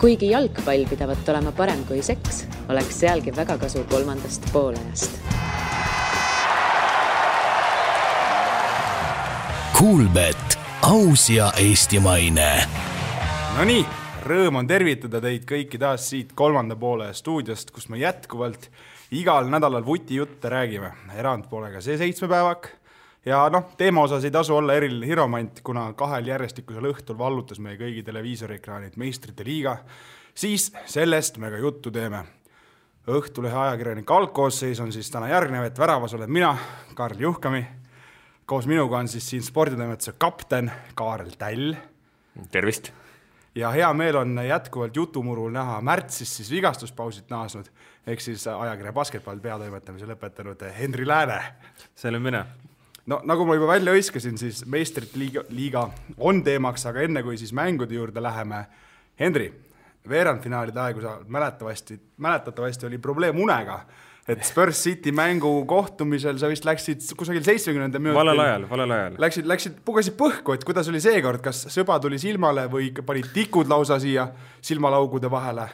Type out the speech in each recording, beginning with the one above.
Kuigi jalgpall pidavat olema parem kui seks, oleks sealgi väga kasu kolmandast poolajast. Kuulbet, aus ja eestimaine. No nii, rõõm on tervitada teid kõiki taas siit kolmanda poole stuudiost, kus me jätkuvalt igal nädalal vuti jutte räägime. Erand pole ka see 7 päevak. Ja teema osas ei tasu olla eriline hiromant, kuna 2 järjestikusel õhtul vallutas meie kõigi televiisoriekraanid Meistrite liiga, siis sellest me ka juttu teeme. Õhtulehe ajakirjanik algkoosseis on siis täna järgnev, et väravas olen mina, Karl Juhkami. Koos minuga on siis siin sporditoimetuse kapten Kaarel Täll. Tervist! Ja hea meel on jätkuvalt jutumurul näha märtsis siis vigastuspausit naasnud, ehk siis ajakirja basketball peatoimetamise lõpetanud Henri Lääne. See olen mina. No nagu ma juba välja õiskasin, siis Meistrite liiga on teemaks, aga enne kui siis mängude juurde läheme. Henri, veerandfinaalide aegu sa mäletatavasti oli probleem unega, et Spurs City mängu kohtumisel sa vist läksid kusagil 70. minutil. Valel ajal. Läksid pugasid põhku, et kuidas oli seekord, kas sõba tuli silmale või panid tikud lausa siia silmalaugude vahele?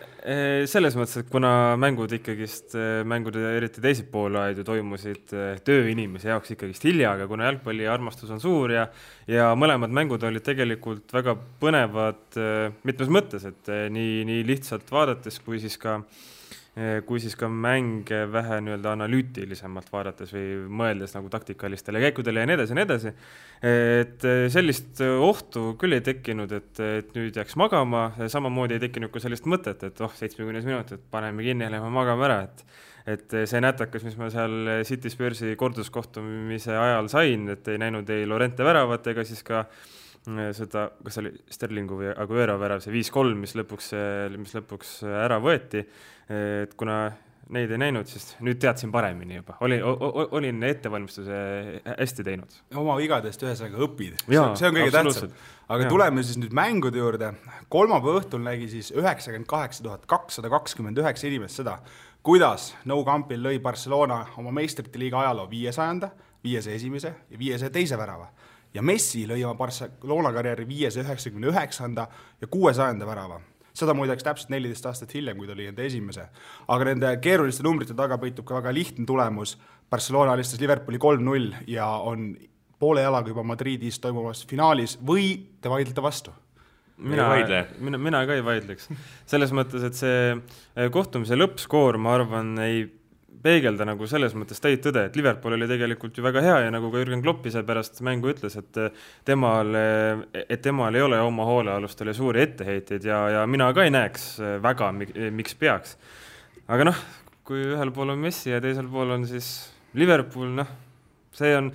Selles mõttes, et kuna mängud eriti teised poolaid ju toimusid tööinimese jaoks ikkagist hilja, aga kuna jalgpalli armastus on suur ja mõlemad mängud olid tegelikult väga põnevad mitmes mõttes, et nii lihtsalt vaadates kui siis ka mänge vähe analüütilisemalt vaadates või mõeldes nagu taktikalistele käikudele ja nii edasi. Et sellist ohtu küll ei tekkinud, et nüüd jääks magama, samamoodi ei tekkinud ka sellist mõtet, et 70 minutit paneme kinni ja lähme magama ära, et see nätakas, mis ma seal City Spursi korduskohtumise ajal sain, et ei näinud ei Lorente väravat ega siis ka seda, kas oli Sterlingu või Aguero värav, see 5-3, mis lõpuks ära võeti, et kuna neid ei näinud, siis nüüd teadsin paremini juba. Olin ettevalmistuse hästi teinud. Oma vigadest ühesõnaga õpid. See on kõige tähtsam. Aga tuleme siis nüüd mängude juurde. Kolmapäeva õhtul nägi siis 98 229 inimest seda, kuidas Nou Campil lõi Barcelona oma Meistrite liiga ajaloo 500, 501 ja 502 värava. Ja Messi lõi oma Barcelona karjääri 599 ja 600 värava. Seda muideks täpselt 14 aastat hiljem, kui ta oli enda esimese. Aga nende keeruliste numbrite taga peitub ka väga lihtne tulemus. Barcelona alistas Liverpooli 3-0 ja on poole jalaga juba Madridis toimuvas finaalis või te vaidlete vastu? Mina ka ei vaidleks. Selles mõttes, et see kohtumise lõppskoor, ma arvan, ei peegelda nagu selles mõttes täit tõde, et Liverpool oli tegelikult ju väga hea ja nagu ka Jürgen Klopp ise pärast mängu ütles, et temal ei ole oma hoolealustele suuri etteheiteid ja mina ka ei näeks väga, miks peaks. Aga kui ühel pool on Messi ja teisel pool on siis Liverpool, see on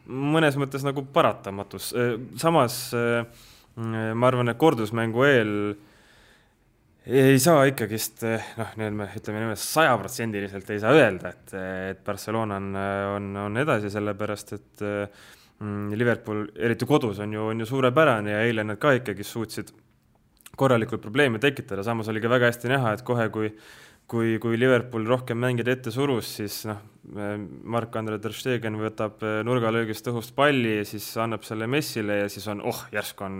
mõnes mõttes nagu paratamatus. Samas ma arvan, et kordusmängu eel ei saa ikkagist, ütleme 100% ei saa öelda, et Barcelona on edasi, sellepärast, et Liverpool, eriti kodus, on ju suurepärane ja eile nad ka ikkagist suutsid korralikult probleeme tekitada. Samas oli ka väga hästi näha, et kohe, kui Liverpool rohkem mängida ette surus, siis Marc-Andre ter Stegen võtab nurgalöögist õhust palli ja siis annab selle Messile ja siis on, järsku on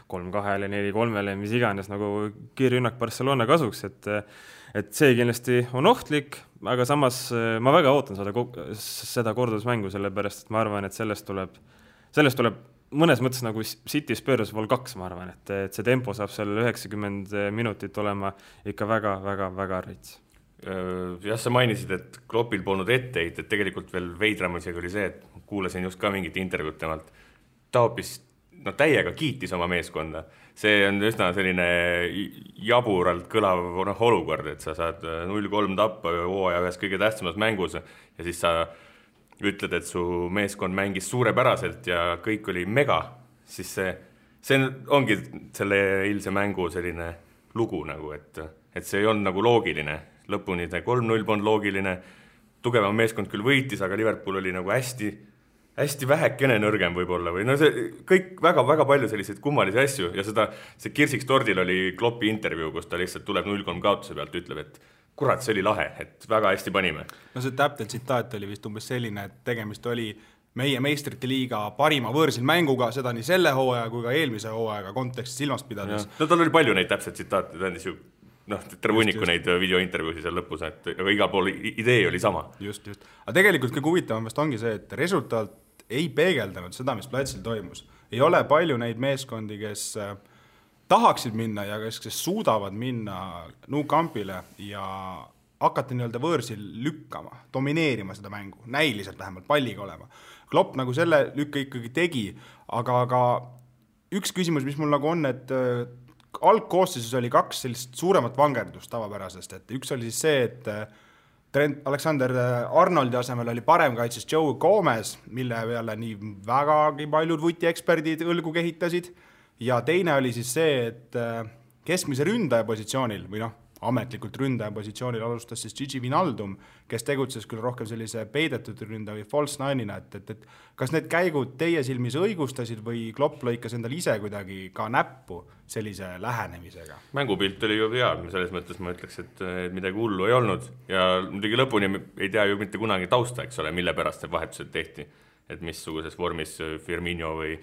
3-2, 4-3, mis iganes nagu kiirrünnak Barcelona kasuks, et see kindlasti on ohtlik, aga samas ma väga ootan seda kordusmängu, sellepärast, et ma arvan, et sellest tuleb mõnes mõttes nagu City Spurs Vol 2, ma arvan, et see tempo saab seal 90 minutit olema ikka väga rits. Jah, sa mainisid, et Kloppil polnud etteid, et tegelikult veel veidram isegi oli see, et kuulasin just ka mingit intervjuud temalt. Ta hoopis täiega kiitis oma meeskonda. See on üsna selline jaburalt kõlav olukord, et sa saad 0-3 tappa hooaja ühes kõige tähtsamas mängus ja siis sa ütled, et su meeskond mängis suurepäraselt ja kõik oli mega, siis see ongi selle eilse mängu selline lugu, nagu, et see ei olnud nagu loogiline. Lõpuni 3-0 polnud loogiline, tugevam meeskond küll võitis, aga Liverpool oli nagu hästi vähekene nõrgem võib-olla. Või see kõik väga palju selliseid kummalisi asju ja see kirsiks tordil oli Kloppi intervjuu, kus ta lihtsalt tuleb 0-3 kaotuse pealt, ütleb, et kurat, see oli lahe, et väga hästi panime. See täpselt tsitaat oli vist umbes selline, et tegemist oli meie Meistrite liiga parima võõrsil mänguga, seda nii selle hooaja kui ka eelmise hooajaga kontekstis silmas pidades. Tal oli palju neid täpselt tsitaate, ta andis ju terve hunniku neid videointervjuusi seal lõpus, aga igal pool idee oli sama. Just. Aga tegelikult kõige huvitavam vast ongi see, et resultaat ei peegeldanud seda, mis platsil toimus. Ei ole palju neid meeskondi, kes tahaksid minna ja kes suudavad minna Nou Campile ja hakati nii-öelda võõrsil lükkama, domineerima seda mängu, näiliselt vähemalt palliga olema. Klopp nagu selle lükka ikkagi tegi, aga üks küsimus, mis mul nagu on, et algkoosseisus oli 2 sellist suuremat vangerdust tavapärasest, et üks oli siis see, et Trent Alexander-Arnoldi asemel oli parem kaitses Joe Gomez, mille peale nii vägagi paljud vutieksperdid õlgu kehitasid, ja teine oli siis see, et keskmise ründaja positsioonil või ametlikult ründaja positsioonil alustas siis Gigi Wijnaldum, kes tegutses küll rohkem sellise peidetud ründaja või false nine'ina, et kas need käigud teie silmis õigustasid või Klopp lõikas endal ise kuidagi ka näppu sellise lähenemisega? Mängupilt oli ju hea, selles mõttes ma ütleks, et midagi hullu ei olnud ja muidugi lõpuni ei tea ju mitte kunagi tausta, eks ole, mille pärast see vahetused tehti, et missuguses vormis Firmino või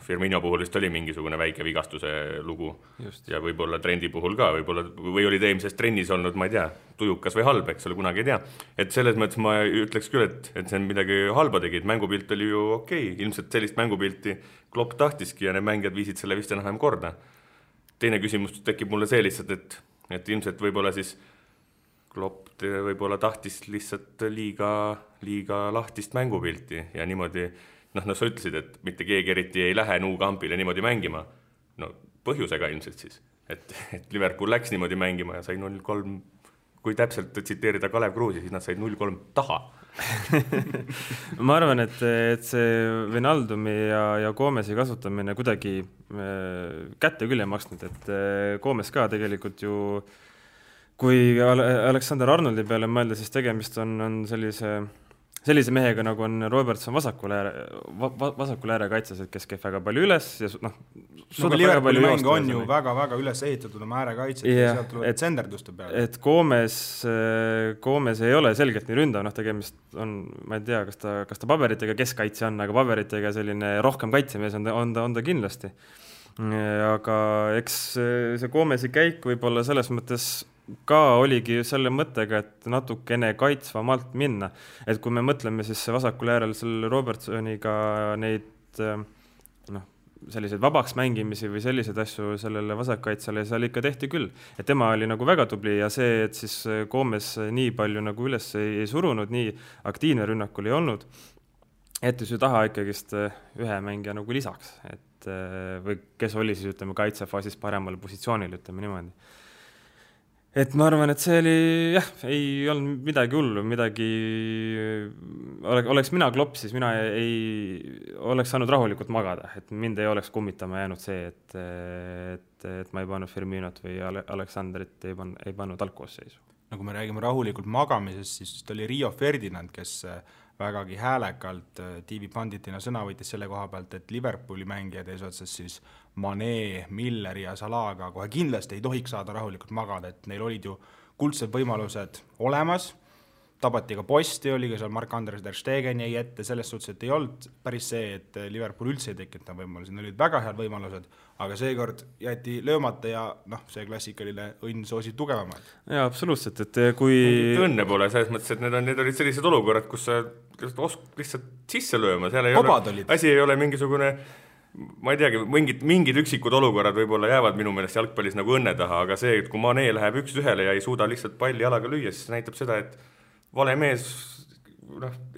Firmino puhul vist oli mingisugune väike vigastuse lugu. Just. Ja võib-olla trendi puhul ka, või oli ta eelmises trennis olnud, ma ei tea, tujukas või halb, eks ole, kunagi ei tea. Et selles mõttes ma ütleks küll, et see on midagi halba tegi, et mängupilt oli ju okei. Ilmselt sellist mängupilti Klopp tahtiski ja need mängijad viisid selle vist enam korda. Teine küsimus tekib mulle see lihtsalt, et ilmselt võib-olla siis Klopp võib-olla tahtis lihtsalt liiga lahtist mängupilti ja niimoodi sa ütlesid, et mitte keegi eriti ei lähe Nou Campile niimoodi mängima. Põhjusega ilmselt siis, et Liverpool läks niimoodi mängima ja sai 0-3, kui täpselt tsiteerida Kalev Kruusi, siis nad said 0-3 taha. Ma arvan, et see Wijnaldumi ja Gomezi kasutamine kuidagi kätte küll ei maksnud, et Gomes ka tegelikult ju, kui Alexander Arnoldi peale mõelda, siis tegemist on sellise mehega, nagu on Robertson vasakul ääre kaitses, et kes käib väga palju üles ja Liverpooli mäng on ju väga üles ehitatud oma ääre kaitset ja sealt tulevad senderduste peale. Et Gomez ei ole selgelt nii ründav, tegemist on, ma ei tea, kas ta paberitega keskkaitse on, aga paberitega selline rohkem kaitsemees on ta kindlasti. Aga eks see Gomezi käik võib-olla selles mõttes ka oligi selle mõttega, et natukene kaitsvamalt minna. Et kui me mõtleme siis vasakul äärel selle Robertsoniga neid selliseid vabaks mängimisi või selliseid asju sellele vasakkaitsele, seal ikka tehti küll. Et tema oli nagu väga tubli ja see, et siis Gomez nii palju nagu üles ei surunud, nii aktiivne rünnakul ei olnud, et ju taha ikkagist ühe mängija nagu lisaks, et, või kes oli siis kaitsefaasis paremal positsioonil, niimoodi. Et ma arvan, et see oli, ei olnud midagi hullu, oleks mina Klopp, siis mina ei oleks saanud rahulikult magada, et mind ei oleks kummitama jäänud see, et ma ei pannud Firminot või Aleksanderit ei pannud algkoosseisu. Nagu me räägime rahulikult magamisest, siis oli Rio Ferdinand, kes vägagi häälekalt TV Panditina sõna võitis selle koha pealt, et Liverpooli mängijad eesotsas siis Mané, Miller ja Salaga kohe kindlasti ei tohiks saada rahulikult magada, et neil olid ju kuldsed võimalused olemas, tabati ka posti, oli ka seal Marc-André ter Stegen jäi ette, selles suhtes, et ei olnud päris see, et Liverpool üldse ei tekita võimalusi, neil olid väga head võimalused, aga seekord jäeti löömata ja see klassikaline õnn soosi tugevamad. Jaa, absoluutselt, et kui õnne pole selles mõttes, et need olid sellised olukorrad, kus sa lihtsalt sisse lööma, seal ei ole, asi ei ole mingisugune, ma ei teagi, mingid üksikud olukorrad võib-olla jäävad minu meelest jalgpallis nagu õnne taha, aga see, et kui Mané läheb 1-1 ja ei suuda lihtsalt palli jalaga lüüa, siis näitab seda, et vale mees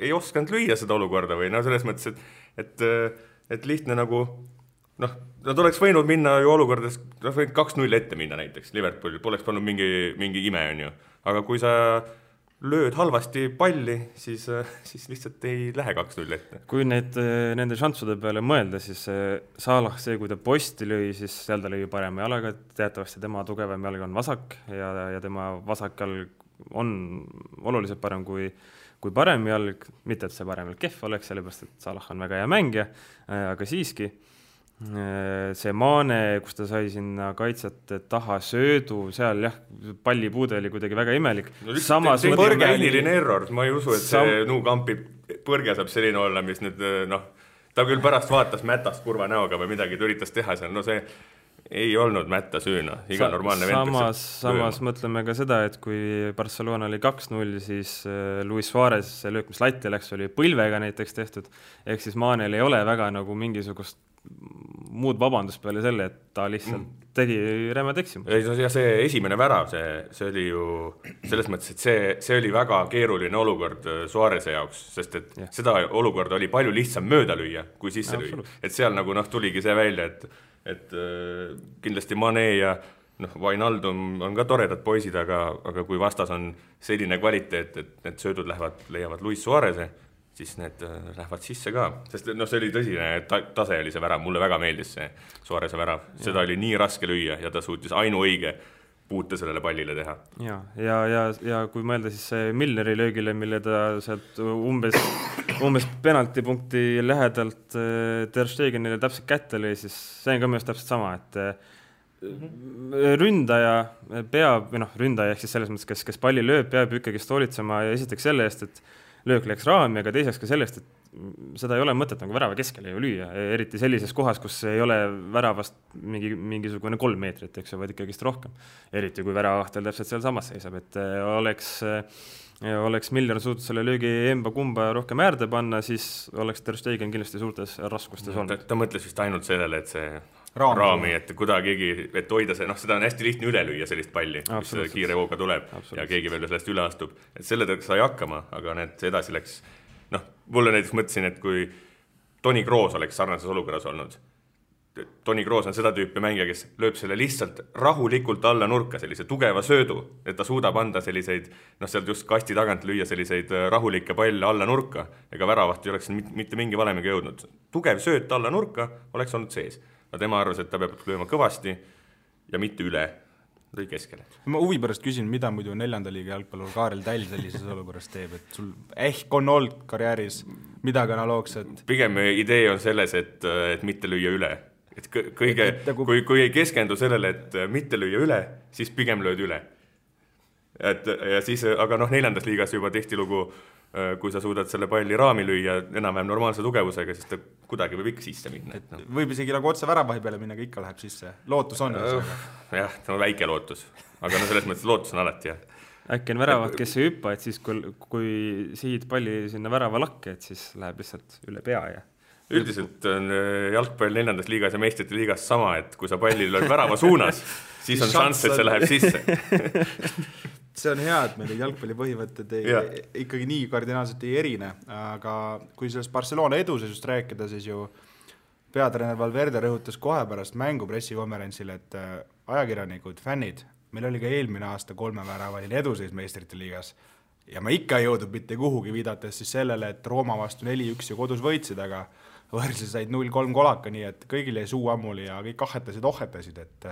ei oskanud lüüa seda olukorda või selles mõttes, et lihtne nagu nad oleks võinud minna ju olukordades, 2-0 ette minna näiteks Liverpoolil, poleks pannud mingi ime on ju, aga kui sa lööd halvasti palli, siis lihtsalt ei lähe 2-0 ette. Kui nende šanssude peale mõelda, siis Salah, kui ta posti lõi, siis seal ta lõi parema jalaga, teatavasti tema tugevam jalg on vasak ja tema vasak jalg on oluliselt parem kui parem jalg, mitte et see parem jalg kehv oleks, sellepärast et Salah on väga hea mängija, aga siiski see Maane, kus ta sai sinna kaitset taha söödu, seal palli puude oli kuidagi väga imelik. See põrgeline error, ma ei usu, et see Nou Campi põrge saab selline olla, mis nüüd ta küll pärast vaatas mätast kurva näoga või midagi, ta üritas teha seal, see ei olnud mätta süüna, iga normaalne vend. Samas mõtleme ka seda, et kui Barcelona oli 2-0, siis Luis Suarez, see löök, mis latti läks, oli põlvega näiteks tehtud, ehk siis Manel ei ole väga nagu mingisugust muud vabandust peale selle, et ta lihtsalt tegi rämmed eksimus. Ja see esimene värav, see oli ju selles mõttes, et see oli väga keeruline olukord Suareze jaoks, sest et seda olukorda oli palju lihtsam mööda lüüa, kui sisse lüüa. Et seal nagu tuligi see välja, et kindlasti Mane ja Wijnaldum on ka toredad poisid, aga kui vastas on selline kvaliteet, et need söödud leiavad Luis Suareze, siis need lähevad sisse ka. Sest see oli tõsine tase oli see värav, mulle väga meeldis see Suareze värav. Seda oli nii raske lüüa ja ta suutis ainuõige puute sellele pallile teha. Ja kui mõelda siis see Milneri löögile, mille ta sealt umbes penaltipunkti lähedalt Ter Stegenile täpselt kätte lõi, siis see on ka minu täpselt sama, et ründaja peab, ründaja ehk siis selles mõttes, kes palli lööb, peab ikkagi hoolitsema ja esiteks selle eest, et löök läks raami, aga teiseks ka sellest, et seda ei ole mõtet nagu värava keskele ju lüüa, eriti sellises kohas, kus ei ole väravast mingisugune 3 meetrit, eks ju, vaid ikkagist rohkem. Eriti kui väravahtel täpselt seal samas seisab, et oleks Milner suutnud selle löögi emba-kumba rohkem äärde panna, siis oleks Ter Stegen kindlasti suurtes raskustes olnud. Ta mõtles vist ainult sellele, et see raami, et kuidagi, et hoida see, seda on hästi lihtne üle lüüa sellist palli, mis kiire hooga tuleb ja keegi veel sellest üle astub. Et selle tõeks sai hakkama, aga need edasi läks. Mulle näiteks mõtlesin, et kui Toni Kroos oleks sarnases olukorras olnud, Toni Kroos on seda tüüpi mängija, kes lööb selle lihtsalt rahulikult alla nurka, sellise tugeva söödu, et ta suudab anda selliseid, sealt just kasti tagant lüüa selliseid rahulikke palle alla nurka, ega väravaht ei oleks mitte mingi valemiga jõudnud. Tugev sööt alla nurka oleks olnud sees. Aga tema arvas, et ta peab lööma kõvasti ja mitte üle, lõi keskele. Ma huvi pärast küsin, mida muidu 4. liiga jalgpallur Kaarel Täll sellises olukorras teeb, et sul ehk on olnud karjääris midagi analoogset? Pigem idee on selles, et mitte lüüa üle. Et kui ei keskendu sellele, et mitte lüüa üle, siis pigem lööd üle. Ja siis, aga 4. liigas juba tihtilugu, kui sa suudad selle palli raami lüüa enam-vähem normaalse tugevusega, siis ta kuidagi võib ikka sisse minna. Võib isegi nagu otse väravahi peale minna, ikka läheb sisse. Lootus on. Jah, see on väike lootus. Aga selles mõttes lootus on alati, jah. Äkki on väravad, kes ei hüppa, et siis kui sihid palli sinna värava lakke, et siis läheb lihtsalt üle pea ja üldiselt on jalgpall 4. liigas ja meistrite liigas sama, et kui sa palli lööd värava suunas, siis on šanss, et see läheb sisse. See on hea, et meil jalgpalli põhimõtted ikkagi nii kardinaalselt ei erine, aga kui sellest Barcelona edusest rääkida, siis ju peatreener Valverde rõhutas kohe pärast mängu pressikonverentsil, et ajakirjanikud, fännid, meil oli ka eelmine aasta 3 väravaline eduseis meistrite liigas ja ma ikka ei jõudnud mitte kuhugi, viidates siis sellele, et Rooma vastu 4-1 ja kodus võitsid, aga võrreldes said 0-3 kolaka, nii et kõigil jäi suu ammuli ja kõik ohetasid, et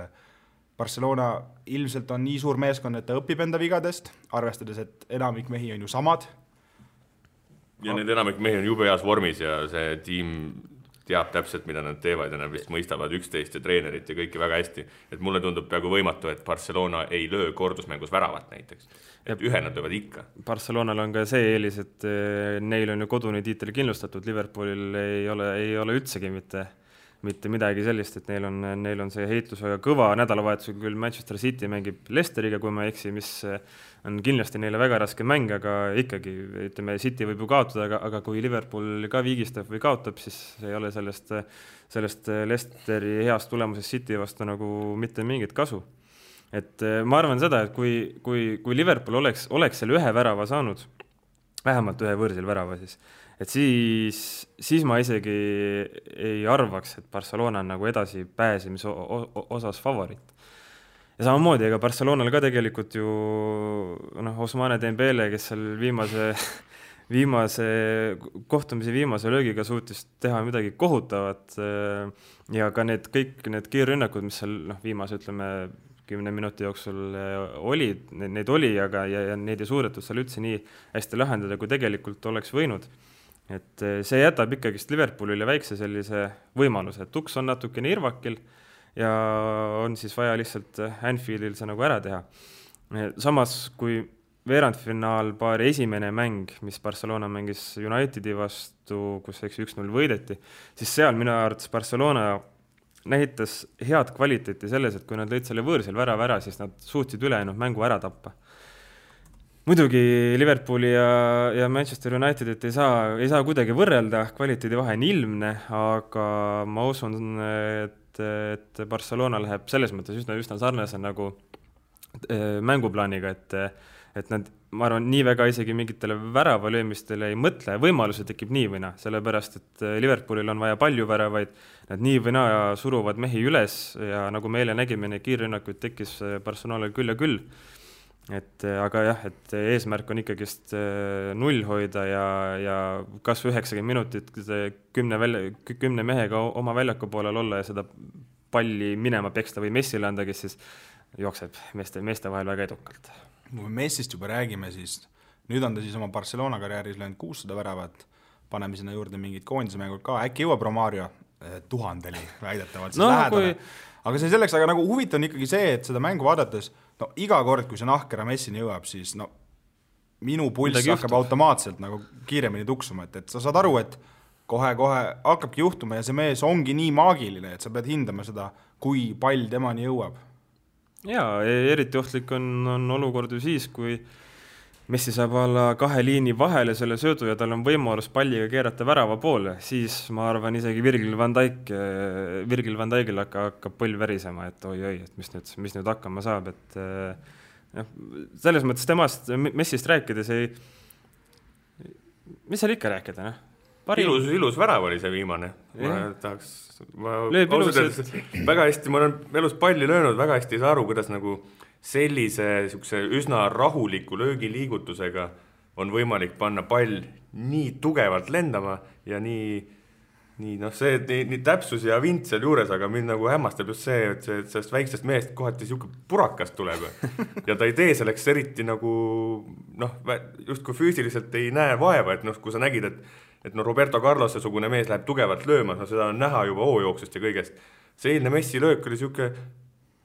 Barcelona ilmselt on nii suur meeskond, et ta õpib enda vigadest, arvestades, et enamik mehi on ju samad. Ja need enamik mehi on jube heas vormis ja see tiim teab täpselt, mida nad teevad ja nad vist mõistavad üksteist ja treenerit ja kõike väga hästi. Et mulle tundub peaaegu võimatu, et Barcelona ei löö kordusmängus väravat näiteks. Et ühe nad löövad ikka. Barcelonal on ka see eelis, et neil on ju kodune tiitel kindlustatud, Liverpoolil ei ole üldsegi mitte midagi sellist, et neil on see heitlus väga kõva. Nädalavahetusega küll Manchester City mängib Leicesteriga, kui ma eksi, mis on kindlasti neile väga raske mäng, aga ikkagi, ütleme, City võib ju kaotada, aga kui Liverpool ka viigistab või kaotab, siis ei ole sellest Leicesteri heast tulemusest City vastu nagu mitte mingit kasu. Et ma arvan seda, et kui Liverpool oleks selle ühe värava saanud, vähemalt ühe võõrsil värava siis ma isegi ei arvaks, et Barcelona on nagu edasi pääsemise osas favoriit. Ja samamoodi, ega Barcelonal ka tegelikult ju Ousmane Dembele, kes seal viimase kohtumise viimase löögiga suutis teha midagi kohutavat ja ka kõik need kiirrünnakud, mis seal viimase, ütleme, 10 minuti jooksul neid oli, aga ja neid ei suudetud seal üldse nii hästi lahendada, kui tegelikult oleks võinud. Et see jätab ikkagist Liverpoolile väikse sellise võimaluse, et tuks on natukene irvakil ja on siis vaja lihtsalt Anfieldil see nagu ära teha. Samas, kui veerandfinaalpaari esimene mäng, mis Barcelona mängis Unitedi vastu, kus 1-0 võideti, siis seal minu arvates Barcelona näitas head kvaliteeti selles, et kui nad lõid selle võõrsil värava ära, siis nad suutsid ülejäänud mängu ära tappa. Muidugi Liverpooli ja Manchester Unitedit ei saa kuidagi võrrelda, kvaliteedi vahe on ilmne, aga ma usun, et Barcelona läheb selles mõttes üsna sarnase nagu mänguplaaniga, et nad, ma arvan, nii väga isegi mingitele väravalöömistele ei mõtle, võimaluse tekib nii või naa, sellepärast, et Liverpoolil on vaja palju väravaid, nad nii või naa suruvad mehi üles ja nagu me eile nägime, neid kiirrünnakuid tekkis Barcelonal küll ja küll. Aga jah, et eesmärk on ikkagist 0 hoida ja kas 90 minutit 10 mehega oma väljaku poolel olla ja seda palli minema peksta või Messile anda, kes siis jookseb meeste vahel väga edukalt. Kui me Messist juba räägime, siis nüüd on ta siis oma Barcelona karjääris löönud 600 väravat, paneme sinna juurde mingid koondismängud ka, äkki jõuab Romario 1000-li väidetavalt siis lähedale. Aga see selleks, aga nagu huvitav on ikkagi see, et seda mängu vaadates, no iga kord, kui see nahkera Messini jõuab, siis no minu pulss hakkab automaatselt nagu kiiremini tuksuma, et sa saad aru, et kohe hakkabki juhtuma ja see mees ongi nii maagiline, et sa pead hindama seda, kui pall temani jõuab. Jaa, eriti ohtlik on olukord ju siis, kui Messi saab olla 2 liini vahele selle söödu ja tal on võimalus palliga keerata värava poole, siis ma arvan isegi Virgil van Dijkil hakkab põll värisema, et oi, et mis nüüd hakkama saab, et selles mõttes temast Messist rääkides mis seal ikka rääkida, noh? Ilus värav oli see viimane. Ma väga hästi, ma olen elus palli löönud, väga hästi ei saa aru, kuidas nagu sellise üsna rahuliku löögiliigutusega on võimalik panna pall nii tugevalt lendama ja nii täpsus ja vint seal juures, aga mind nagu hämmastab just see, et sellest väiksest mehest kohati siuke purakast tuleb ja ta ei tee selleks eriti nagu just kui füüsiliselt ei näe vaeva, et kui sa nägid, et Roberto Carlose sugune mees läheb tugevalt lööma, seda on näha juba hoojooksust ja kõigest. See eilne Messi löök oli siuke,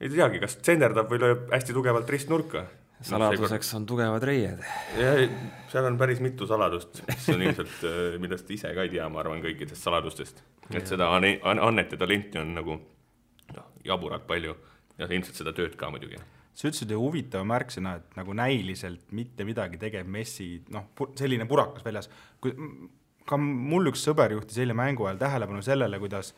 ei teagi, kas tsenderdab või lööb hästi tugevalt ristnurka. Saladuseks on tugevad reied. Ja seal on päris mitu saladust, mis on ilmselt, millest ise ka ei tea, ma arvan, kõikidest saladustest. Et seda annet ja talenti on nagu jaburalt palju ja ilmselt seda tööd ka muidugi. See ütlesid ju huvitav märksõna, et nagu näiliselt mitte midagi tegev Messi, selline purakas väljas. Ka mul üks sõber juhtis eile mängu ajal tähelepanu sellele, kuidas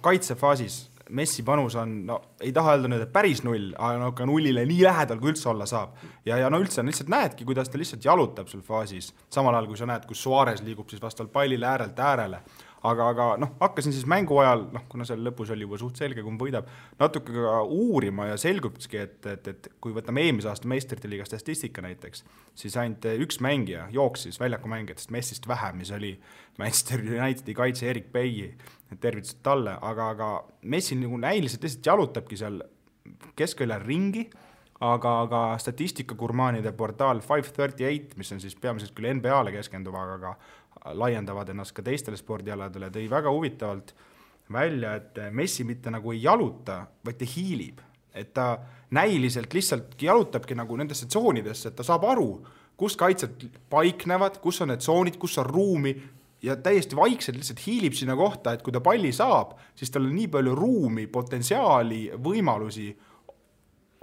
kaitsefaasis Messi panus on, ei taha öelda nüüd, et päris 0, aga nullile nii lähedal, kui üldse olla saab. Ja üldse lihtsalt näedki, kuidas ta lihtsalt jalutab sul faasis. Samal ajal, kui sa näed, kus Suarez liigub siis vastavalt pallile äärelt äärele. Aga hakkasin siis mängu ajal, kuna seal lõpus oli juba suht selge, kui võidab, natuke ka uurima ja selgubki, et kui võtame eelmise aasta meistrite liiga statistika näiteks, siis ainult üks mängija jooksis väljakumängijatest Messist vähem, mis oli Manchester Unitedi kaitse Erik Bailly, tervitused talle, aga Messi nagu näiliselt lihtsalt jalutabki seal keskväljal ringi, aga statistikagurmaanide portaal 538, mis on siis peamiselt küll NBA-le keskenduva, aga laiendavad ennast ka teistele spordialadele, tõi väga huvitavalt välja, et Messi mitte nagu ei jaluta, vaid ta hiilib. Et ta näiliselt lihtsalt jalutabki nagu nendesse tsoonidesse, et ta saab aru, kus kaitsed paiknevad, kus on need tsoonid, kus on ruumi ja täiesti vaikselt lihtsalt hiilib sinna kohta, et kui ta palli saab, siis tal on nii palju ruumi, potentsiaali, võimalusi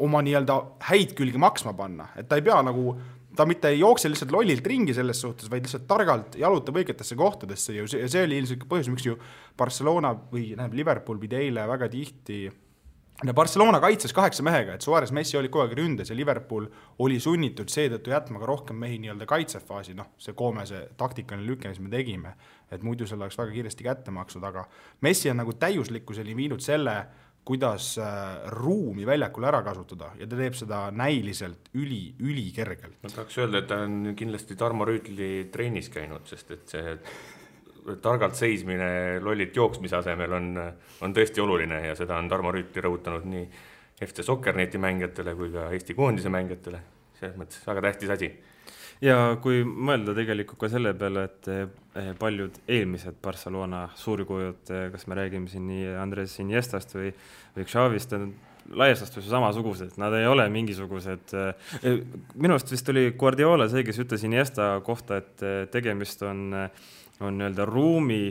oma nii-öelda häid külgi maksma panna. Et ta ei pea nagu ta mitte ei jookse lihtsalt lollilt ringi selles suhtes, vaid lihtsalt targalt jalutab õigetesse kohtadesse ja see oli ilmselt põhjus, miks ju Barcelona või Liverpool pidi eile väga tihti. Barcelona kaitses 8 mehega, et Suarez Messi oli kogu aeg ründes ja Liverpool oli sunnitud seetõttu jätma ka rohkem mehi nii-öelda kaitsefaasi, see koomese taktikaline lüke, mis me tegime, et muidu selle oleks väga kiiresti kätte maksud, aga Messi on nagu täiuslikkuseni viinud selle, kuidas ruumi väljakul ära kasutada ja ta teeb seda näiliselt üli kergelt. Ma tahaks öelda, et ta on kindlasti Tarmo Rüütli treenis käinud, sest et see targalt seismine lollit jooksmise asemel on tõesti oluline ja seda on Tarmo Rüütli rõhutanud nii FC Soccerneti mängijatele kui ka Eesti koondise mängijatele. Selles mõttes väga tähtis asi. Ja kui mõelda tegelikult ka selle peale, et paljud eelmised Barcelona suurkujud, kas me räägime siin nii Andres Iniestast või Xavist, laias laastus samasugused, nad ei ole mingisugused. Minu arust vist oli Guardiola see, kes ütles Iniesta kohta, et tegemist on nii-öelda ruumi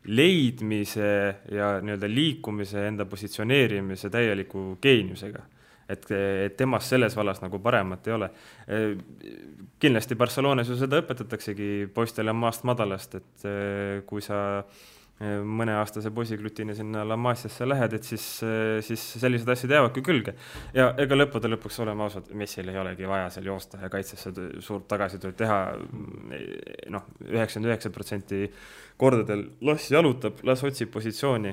leidmise ja nii-öelda liikumise, enda positsioneerimise täieliku geeniusega. Et temast selles vallas nagu paremat ei ole. Kindlasti Barcelonas ju seda õpetataksegi poistele maast madalast, et kui sa mõneaastase poisiglutini sinna La Masiasse lähed, et siis sellised asjad jäävadki külge. Ja ega lõppude lõpuks olema ausad, Messil ei olegi vaja seal joosta ja kaitsesse suurt tagasitööd teha. 99% kordadel las jalutab, las otsib positsiooni.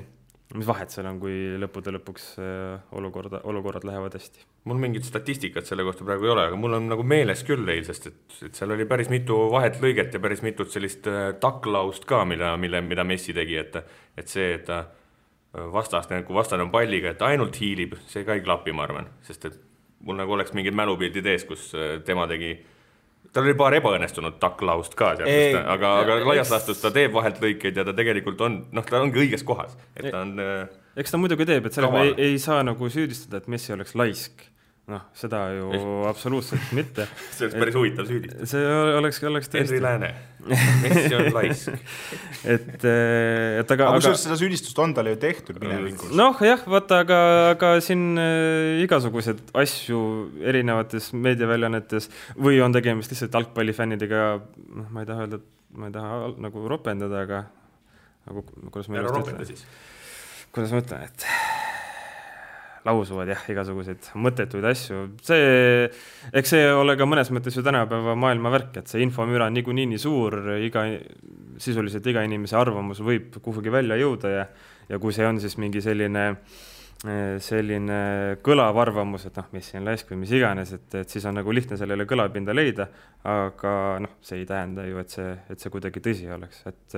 Mis vahet seal on, kui lõppude lõpuks olukorrad lähevad hästi? Mul mingit statistikat selle kohta praegu ei ole, aga mul on nagu meeles küll eilsest, et seal oli päris mitu vahet lõiget ja päris mitut sellist taklaust ka, mida Messi tegi, et see, et ta kui vastane on palliga, et ainult hiilib, see ka ei klapi, ma arvan, sest et mul nagu oleks mingid mälupildid ees, kus tema tegi. Tal oli paar ebaõnnestunud taklaust ka, aga laias laastus ta teeb vahelt lõikeid ja ta tegelikult on, ta ongi õiges kohas. Et ta on, eks ta muidugi teeb, et sellega ei saa nagu süüdistada, et Messi oleks laisk. Seda ju absoluutselt mitte. See oleks päris huvitav süüdistada. See oleks tõesti. Henri Lääne. Messi on laisk. Aga seda süüdistust on talle ju tehtud minevikus. Jah, vaata, aga siin igasugused asju erinevates meediaväljanetes või on tegemist lihtsalt jalgpallifännidega, ma ei taha öelda, ma ei taha nagu ropendada, aga kuidas ma ütlen, et lausuvad igasuguseid mõttetuid asju. Eks see ole ka mõnes mõttes ju tänapäeva maailma värk, et see infomüra on niikuinii suur, sisuliselt iga inimese arvamus võib kuhugi välja jõuda ja kui see on siis mingi selline kõlav arvamus, et Messi on laisk või mis iganes, et siis on nagu lihtne sellele kõlapinda leida, aga see ei tähenda ju, et see kuidagi tõsi oleks, et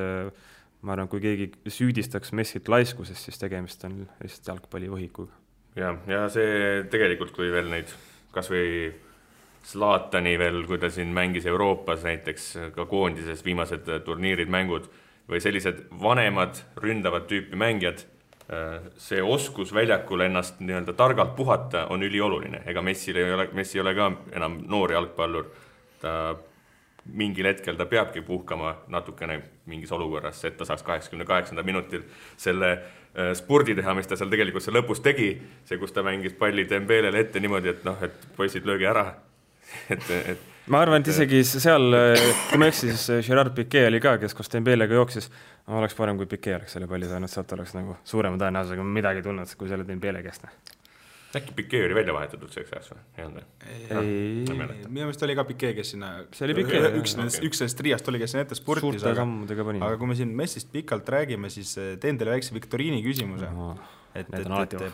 ma arvan, kui keegi süüdistaks Messit laiskusest, siis tegemist on lihtsalt jalgpallivõhikuga. Ja see tegelikult, kui veel neid kas või Zlatani veel, kui ta siin mängis Euroopas näiteks ka koondises viimased turniirid, mängud või sellised vanemad ründavad tüüpi mängijad, see oskus väljakul ennast nii-öelda targalt puhata on ülioluline. Ega Messi ei ole ka enam noor jalgpallur. Ta mingil hetkel ta peabki puhkama natukene mingis olukorras, et ta saaks 88. minutil selle spurdi teha, mis ta seal tegelikult see lõpus tegi, see, kus ta mängis palli Dembelele ette niimoodi, et poisid löögi ära. Ma arvan, et isegi seal, kui ma eksin, siis Gerard Piqué oli ka, kes koos Dembelega jooksis, oleks parem, kui Piqué oleks selle palli saanud, sealt oleks nagu suurema tõenäosusega midagi tulnud, kui selle Dembele käest. Äkki Piqué oli välja vahetatud selleks ajaks või? Minu meelest oli ka Piqué, kes sinna üks sellest triast oli, kes sinna ette spurtis, aga kui me siin Messist pikalt räägime, siis teen teile väikse viktoriini küsimuse, et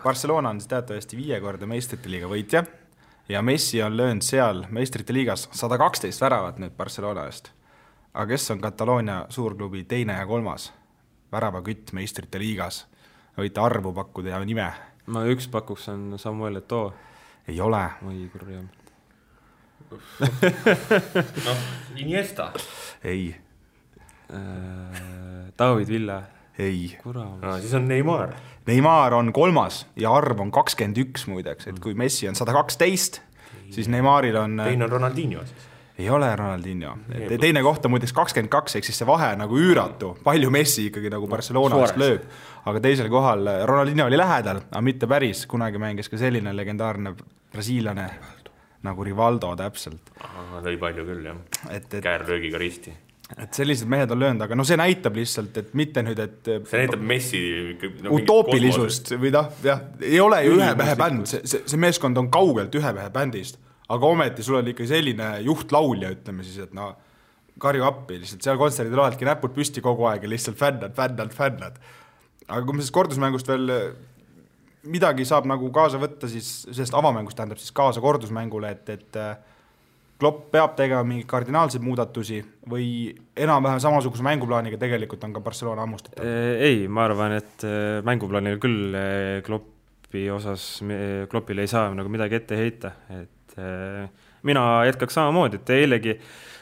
Barcelona on teatavasti 5 korda meistrite liiga võitja ja Messi on löönud seal meistrite liigas 112 väravat nüüd Barcelona eest, aga kes on Kataloonia suurklubi 2. ja 3. väravakütt meistrite liigas? Võite arvu pakkuda ja nime. Ma üks pakuks on Samuel Eto'o. Ei ole. Oi, kurjam. Iniesta. Ei. David Villa. Ei. Siis on Neymar. Neymar on 3. ja arv on 21 muideks, et kui Messi on 112, siis Neymaril on... Teine on Ronaldinho siis. Ei ole Ronaldinho. Teine kohta muideks 22, ehk siis see vahe nagu üüratu. Palju Messi ikkagi nagu Barcelonast lööb. Aga teisel kohal Ronaldinho oli lähedal, aga mitte päris. Kunagi mängis ka selline legendaarne brasiillane nagu Rivaldo täpselt. Lõi palju küll, jah. Käärlöögiga risti. Et sellised mehed on löönud, aga see näitab lihtsalt, et mitte nüüd, et... See näitab Messi... utoopilisust või ei ole ju ühe mehe bänd. See meeskond on kaugelt ühe mehe bändist. Aga ometi sul on ikka selline juhtlaulja, ütleme siis, et karju appi, lihtsalt seal kontserdil oledki näpud püsti kogu aeg ja lihtsalt fännad. Aga kui me siis kordusmängust veel midagi saab nagu kaasa võtta, siis sellest avamängust tähendab siis kaasa kordusmängule, et Klopp peab tegema mingi kardinaalseid muudatusi või enam-vähem samasuguse mänguplaaniga tegelikult on ka Barcelona ammustatav? Ei, ma arvan, et mänguplaanil küll Kloppile ei saa nagu midagi ette heita, et mina jätkaks samamoodi, et eilegi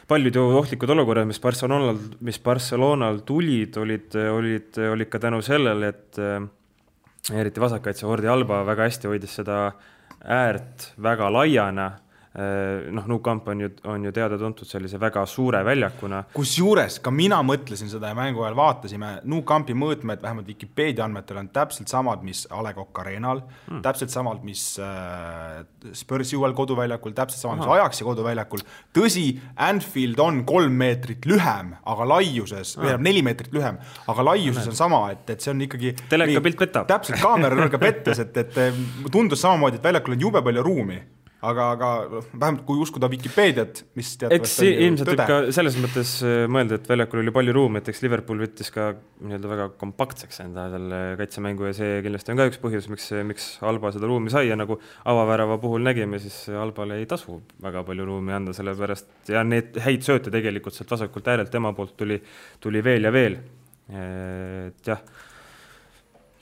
paljud ohtlikud olukorrad, mis Barcelonal tulid, olid ka tänu sellele, et eriti vasakkaitse Jordi Alba väga hästi hoidis seda äärt väga laiana, Nou Camp on ju teada-tuntud sellise väga suure väljakuna. Kusjuures ka mina mõtlesin seda ja mängu ajal vaatasime, Nou Campi mõõtmed vähemalt Wikipedia andmetel on täpselt samad, mis A. Le Coq Arenal, täpselt samad, mis Spursi uuel koduväljakul, täpselt samad, mis Ajaxi koduväljakul. Tõsi, Anfield on 3 meetrit lühem, aga laiuses, 4 meetrit lühem, aga laiuses on sama, et see on ikkagi... Teleka pilt petab. Täpselt, kaamera nurga pettes, et tundus samamoodi, et väljakul on jube palju ruumi. Aga vähemalt kui uskuda Wikipediat, mis eks ilmselt tõde. Ka selles mõttes mõelda, et väljakul oli palju ruumi, et eks Liverpool võttis ka väga kompaktseks enda selle kaitsemängu ja see kindlasti on ka üks põhjus, miks Alba seda ruumi sai ja nagu avavärava puhul nägime, siis Albale ei tasu väga palju ruumi anda selle pärast ja need häid sööte tegelikult sealt vasakult äärelt tema poolt tuli veel ja veel. Et jah,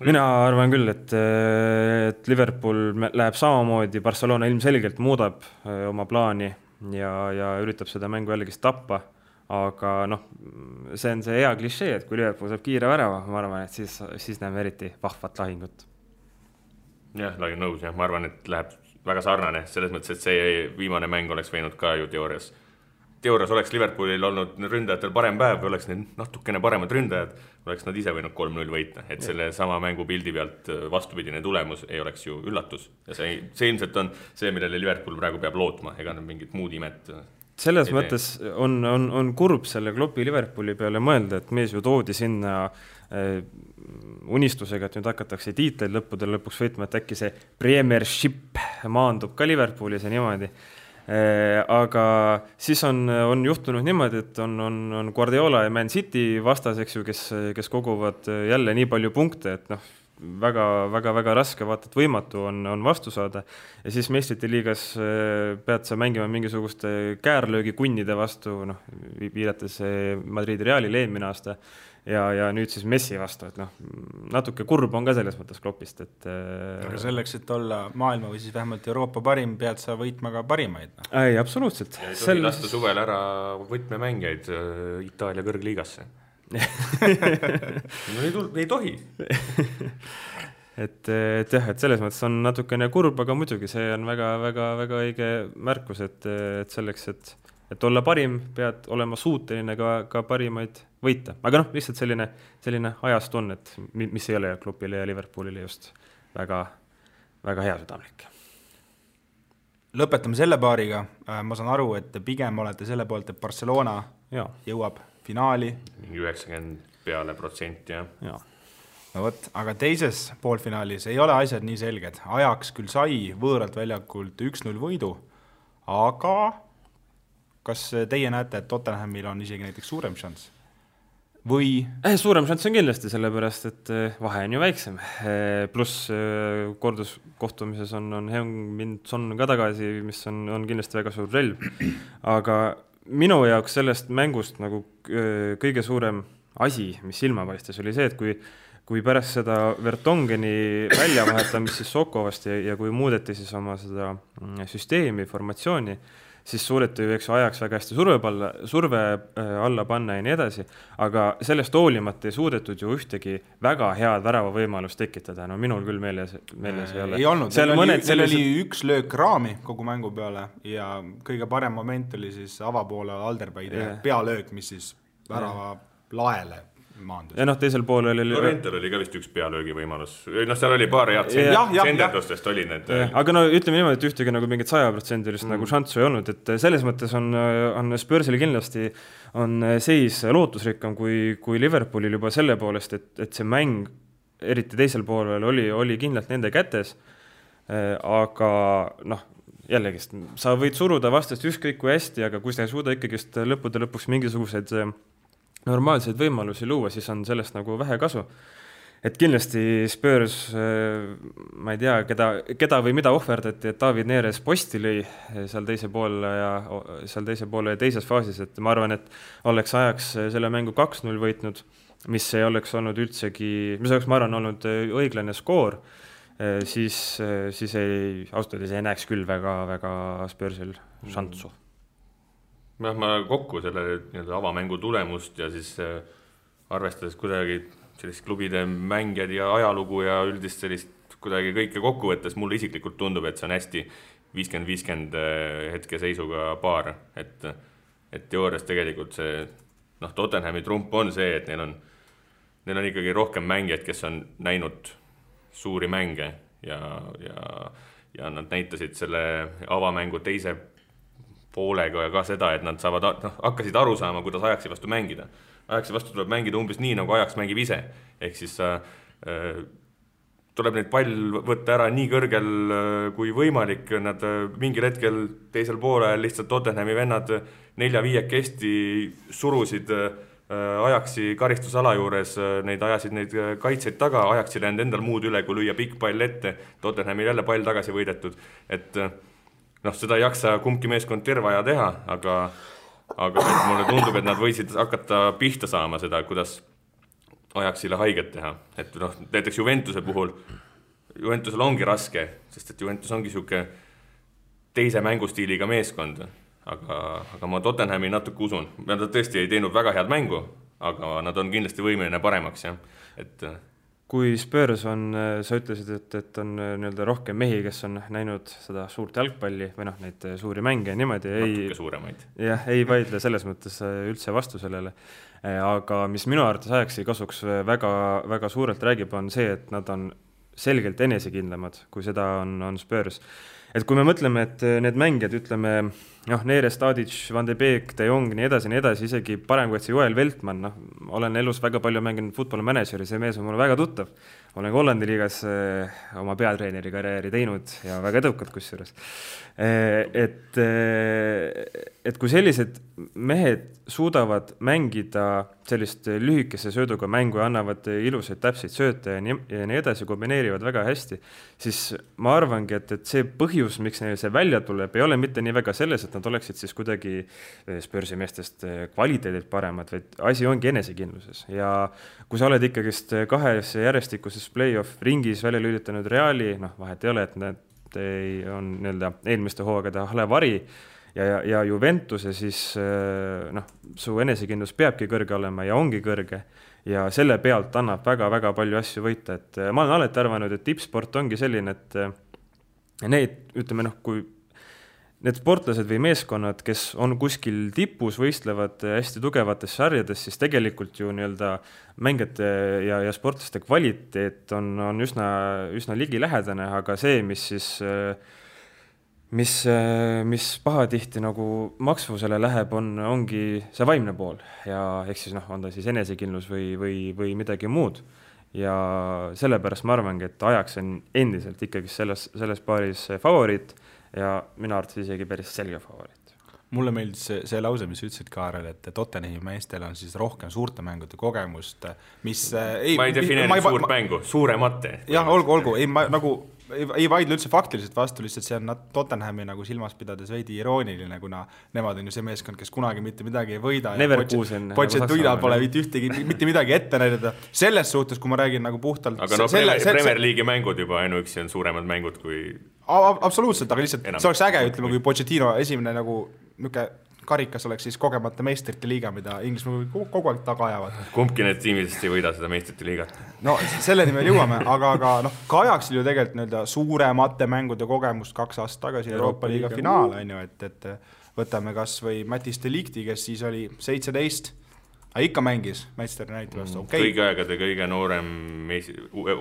mina arvan küll, et Liverpool läheb samamoodi, Barcelona ilmselgelt muudab oma plaani ja üritab seda mängu jällegi tappa, aga see on see hea klišee, et kui Liverpool saab kiire värava, ma arvan, et siis näeme eriti vahvat lahingut. Jah, olen nõus, ma arvan, et läheb väga sarnane, selles mõttes, et see viimane mäng oleks võinud ka ju teoorias oleks Liverpoolil olnud ründajatel parem päev, või oleks need natukene paremad ründajad, oleks nad ise võinud 3-0 võita, et selle sama mängu pildi pealt vastupidine tulemus ei oleks ju üllatus. Ja see ilmselt on see, millele Liverpool praegu peab lootma, ega nad mingit muud imet. Selles mõttes on kurb selle Kloppi Liverpooli peale mõelda, et mees ju toodi sinna unistusega, et nüüd hakatakse tiitleid lõpuks võitma, et äkki see Premiership maandub ka Liverpoolis ja niimoodi. Aga siis on juhtunud niimoodi, et on Guardiola ja Man City vastaseks ju, kes koguvad jälle nii palju punkte, et väga raske vaata, et võimatu on vastu saada ja siis meistrite liigas pead sa mängima mingisuguste käärlöögi kunnide vastu, viidates Madridi Realile eelmine aasta ja nüüd siis Messi vastu, et natuke kurb on ka selles mõttes Kloppist, et aga selleks, et olla maailma või siis vähemalt Euroopa parim, pead sa võitma ka parimaid. Ei, absoluutselt. Ja ei tohi lasta suvel ära võtmemängijaid Itaalia kõrgliigasse. ei tohi. et selles mõttes on natukene kurb, aga muidugi see on väga õige märkus, et selleks, et olla parim, pead olema suuteline ka parimaid võita. Aga lihtsalt selline ajast on, et mis ei ole Kloppile ja Liverpoolile just väga hea südamlik. Lõpetame selle paariga. Ma saan aru, et pigem olete selle poolt, et Barcelona jõuab finaali. 90% ja. No võt, aga teises poolfinaalis ei ole asjad nii selged. Ajax küll sai võõralt väljakult 1-0 võidu, aga kas teie näete, et Tottenhamil on isegi näiteks suurem šanss? Või? Suurem šanss on kindlasti, sellepärast, et vahe on ju väiksem. Pluss korduskohtumises on Heung-min Son ka tagasi, mis on kindlasti väga suur relv. Aga minu jaoks sellest mängust kõige suurem asi, mis silma paistes, oli see, et kui pärast seda Vertongeni väljavahetamist siis Sokovast ja kui muudeti siis oma seda süsteemi, formatsiooni, siis suudeti ju Ajax väga hästi surve alla panna ja nii edasi, aga sellest hoolimata ei suudetud ju ühtegi väga head väravavõimalust tekitada. Minul küll meeles ei ole. Ei olnud, seal oli üks löök raami kogu mängu peale ja kõige parem moment oli siis avapoole Alderweireli pealöök, mis siis värava laele maandus. Ja teisel pool oli... Lorentel oli ka vist üks pealöögi võimalus. Seal oli paar head senderdustest oli need. Aga ütleme niimoodi, et ühtegi mingit 100% nagu šanssu ei olnud, et selles mõttes on Spursil kindlasti on seis lootusrikkam kui Liverpoolil juba selle poolest, et see mäng eriti teisel poolel oli kindlalt nende kätes, aga jällegist, sa võid suruda vastast ükskõik kui hästi, aga kui sa ei suuda ikkagist lõpuks mingisugused normaalseid võimalusi luua, siis on sellest vähe kasu. Et kindlasti Spurs, ma ei tea, keda või mida ohverdati, et David Neres posti lõi seal teise poole ja teises faasis, et ma arvan, et oleks Ajax selle mängu 2-0 võitnud, mis ei oleks olnud üldsegi, mis oleks, ma arvan, olnud õiglane skoor, siis ausalt ei näeks küll väga Spursil šanssu. Ma kokku selle avamängu tulemust ja siis arvestades kuidagi sellist klubide mängijad ja ajalugu ja üldist sellist kuidagi kõike kokku võttes, mulle isiklikult tundub, et see on hästi 50-50 hetke seisuga paar, et teoorias tegelikult see, Tottenhami trump on see, et neil on ikkagi rohkem mängijaid, kes on näinud suuri mänge ja nad näitasid selle avamängu teise poolega ka seda, et nad hakkasid aru saama, kuidas Ajaxi vastu mängida. Ajaxi vastu tuleb mängida umbes nii, nagu Ajax mängib ise. Ehk siis tuleb neid pall võtta ära nii kõrgel kui võimalik. Nad mingil hetkel teisel poolel lihtsalt Tottenhami vennad 4-5 surusid Ajaxi karistusala juures, ajasid neid kaitseid taga, Ajaxil jäänud endal muud üle, kui lüüa pikk pall ette, Tottenhamil jälle pall tagasi võidetud, et seda ei jaksa kumbki meeskond terve aja teha, aga mulle tundub, et nad võisid hakata pihta saama seda, kuidas Ajaxile haiget teha, et näiteks Juventuse puhul, Juventusel ongi raske, sest et Juventus ongi siuke teise mängustiiliga meeskond, aga ma Tottenhami natuke usun. Nad tõesti ei teinud väga head mängu, aga nad on kindlasti võimeline paremaks. Kui Spurs on, sa ütlesid, et on rohkem mehi, kes on näinud seda suurt jalgpalli või neid suuri mänge niimoodi, natuke suuremaid. Jah, ei vaidle selles mõttes üldse vastu sellele. Aga mis minu arvates Ajaxi kasuks väga, väga suurelt räägib, on see, et nad on selgelt enesekindlamad, kui seda on Spurs. Et kui me mõtleme, et need mängijad, ütleme, Neres, Tadic, Van de Beek, De Jong, nii edasi, isegi parem kui see Joel Veltman, olen elus väga palju mänginud football manageri, see mees on mulle väga tuttav. Olen Hollandi liigas oma peatreeneri karjääri teinud ja väga edukad kusjuures. Et kui sellised mehed suudavad mängida sellist lühikese sööduga mängu ja annavad ilusaid täpseid sööte ja nii edasi, kombineerivad väga hästi, siis ma arvangi, et see põhjus, miks neil see välja tuleb, ei ole mitte nii väga selles, et nad oleksid siis kuidagi Spursi meestest kvaliteedilt paremad, vaid asi ongi enesekindluses. Ja kui sa oled ikkagist 2 järjestikuses play-off ringis välja lülitanud Reali, vahet ei ole, et need on eelmiste hooagade halevari ja Juventuse, siis su enesekindlus peabki kõrge olema ja ongi kõrge ja selle pealt annab väga-väga palju asju võita. Et ma olen alati arvanud, et tippsport ongi selline, et need, ütleme, kui need sportlased või meeskonnad, kes on kuskil tipus, võistlevad hästi tugevates sarjades, siis tegelikult ju mängijate ja sportlaste kvaliteet on üsna ligilähedane, aga see, mis pahatihti maksvusele läheb, ongi see vaimne pool ja ehk siis on ta siis enesekindlus või midagi muud. Ja sellepärast ma arvangi, et Ajax on endiselt ikkagi selles paaris favoriit ja minu arvates isegi päris selge favoriit. Mulle meeldis see lause, mis ütlesid Kaarel, et Tottenhami meestel on siis rohkem suurte mängude kogemust, mis ma ei defineeri suurt mängu, suuremate. Jah, olgu, ei vaidle üldse faktiliselt vastu, lihtsalt see on Tottenhami silmas pidades veidi irooniline, kuna nemad on ju see meeskond, kes kunagi mitte midagi ei võida. Pochettino pole mitte midagi ette näidata. Selles suhtes, kui ma räägin puhtalt... Aga Premier League'i mängud juba ainuüksi on suuremad mängud kui... Absoluutselt, aga lihtsalt see oleks äge, ütleme, kui Pochettino esimene karikas oleks siis kogemata meistrite liiga, mida Inglismaa kogu aeg taga ajavad. Kumbki need tiimidest ei võida seda meistrite liigat? No selleni me jõuame, aga ka Ajaxil ju tegelikult suuremate mängude kogemust 2 aastat tagasi Euroopa liiga finaal, et võtame kas või Mattis de Ligti, kes siis oli 17, aga ikka mängis Manchester United vastu. Kõigi aegade kõige noorem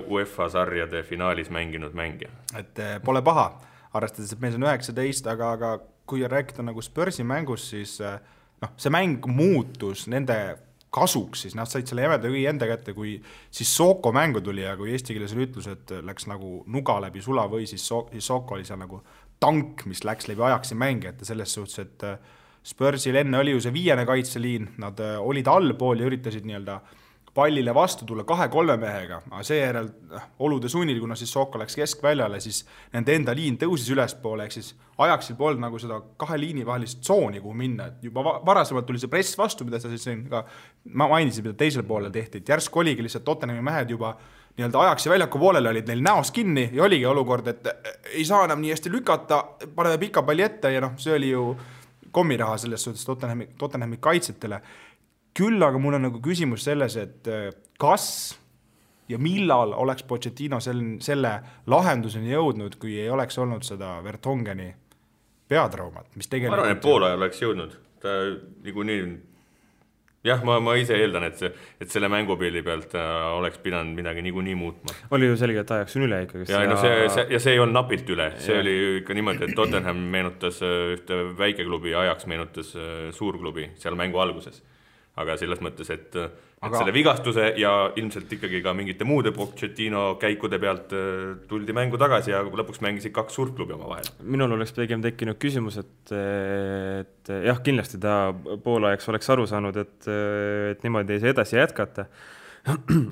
UEFA sarjade finaalis mänginud mängija. Et pole paha, arvestades, et mees on 19, aga kui rääkida Spursi mängus, siis see mäng muutus nende kasuks, siis nad said selle jämeda kõigi enda kätte, kui siis Soko mängu tuli ja kui eesti keeles oli ütlus, et läks nuga läbi sula või siis Soko oli seal tank, mis läks läbi Ajaxi mängijate selles suhtes, et Spursil enne oli ju see 5. kaitseliin, nad olid allpool ja üritasid pallile vastu tulla 2-3 mehega, aga seejärel olude sunnil, kuna siis Soko läks keskväljale, siis nende enda liin tõusis ülespoole, ehk siis Ajaxil polnud seda 2 liini vahelist tsooni, kuhu minna. Et juba varasemalt tuli see press vastu, mida ma mainisin, mida teisel poolel tehti, et järsk oligi lihtsalt Tottenhami mehed juba Ajaxi väljaku poolele olid neil näos kinni ja oligi olukord, et ei saa enam nii hästi lükata, paneme pika palli ette ja see oli ju kommiraha selles suhtes Tottenhami kaitsetele. Küll aga mul on küsimus selles, et kas ja millal oleks Pochettino selle lahenduseni jõudnud, kui ei oleks olnud seda Vertongeni peatraumat, mis tegelikult... Ma arvan, et pool ajal oleks jõudnud. Ta niikuinii... Jah, ma ise eeldan, et selle mängupilli pealt oleks pidanud midagi niikuinii muutma. Oli ju selge, et ajaksin üle ikkagi. Ja see ei olnud napilt üle. See oli ikka niimoodi, et Tottenham meenutas ühte väikeklubi ja Ajax meenutas suurklubi seal mängu alguses. Aga selles mõttes, et selle vigastuse ja ilmselt ikkagi ka mingite muude Pochettino käikude pealt tuldi mängu tagasi ja lõpuks mängisid 2 suurt klubi oma vahel. Minul oleks pigem tekkinud küsimus, et jah, kindlasti ta poolajaks oleks aru saanud, et niimoodi ei saa edasi jätkata.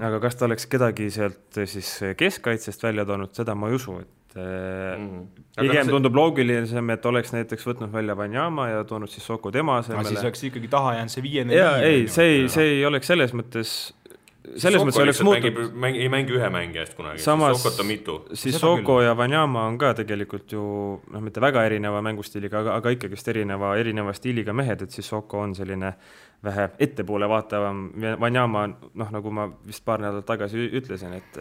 Aga kas ta oleks kedagi sealt siis keskkaitsest välja toonud, seda ma ei usu, et pigem tundub loogilisem, et oleks näiteks võtnud välja Wanyama ja toonud siis Soko tema asemele. Siis oleks ikkagi taha jäänud see 5-4. Ei, see ei oleks selles mõttes oleks muutud. Ei mängi ühe mängi eest kunagi, samas, siis Sokot on mitu. Siis Soko ja Wanyama on ka tegelikult ju mitte väga erineva mängustiiliga, aga ikkagist erineva stiiliga mehed, et siis Soko on selline vähe ettepoole vaatavam. Wanyama, nagu ma vist paar nädalat tagasi ütlesin, et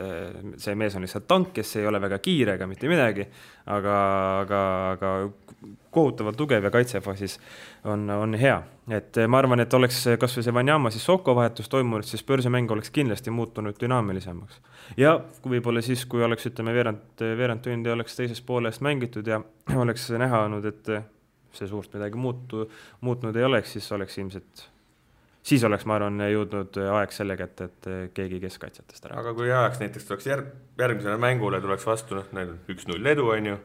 see mees on lihtsalt tank, kes ei ole väga kiire ega mitte midagi, aga kohutavalt tugev ja kaitsefaasis on hea. Et ma arvan, et oleks kas või see Wanyama siis Soko vahetus toimunud, siis Spursi mäng oleks kindlasti muutunud dünaamilisemaks. Ja võib-olla siis, kui oleks, ütleme, veerand tundi oleks teises poolest mängitud ja oleks näha olnud, et see suurt midagi muutnud ei oleks, siis oleks ilmselt siis oleks, ma arvan, jõudnud aeg selle kätte, et keegi keskkaitsjatest ära. Aga kui ajaks näiteks tuleks järgmisele mängule, tuleks vastu 1-0 edu, on ju,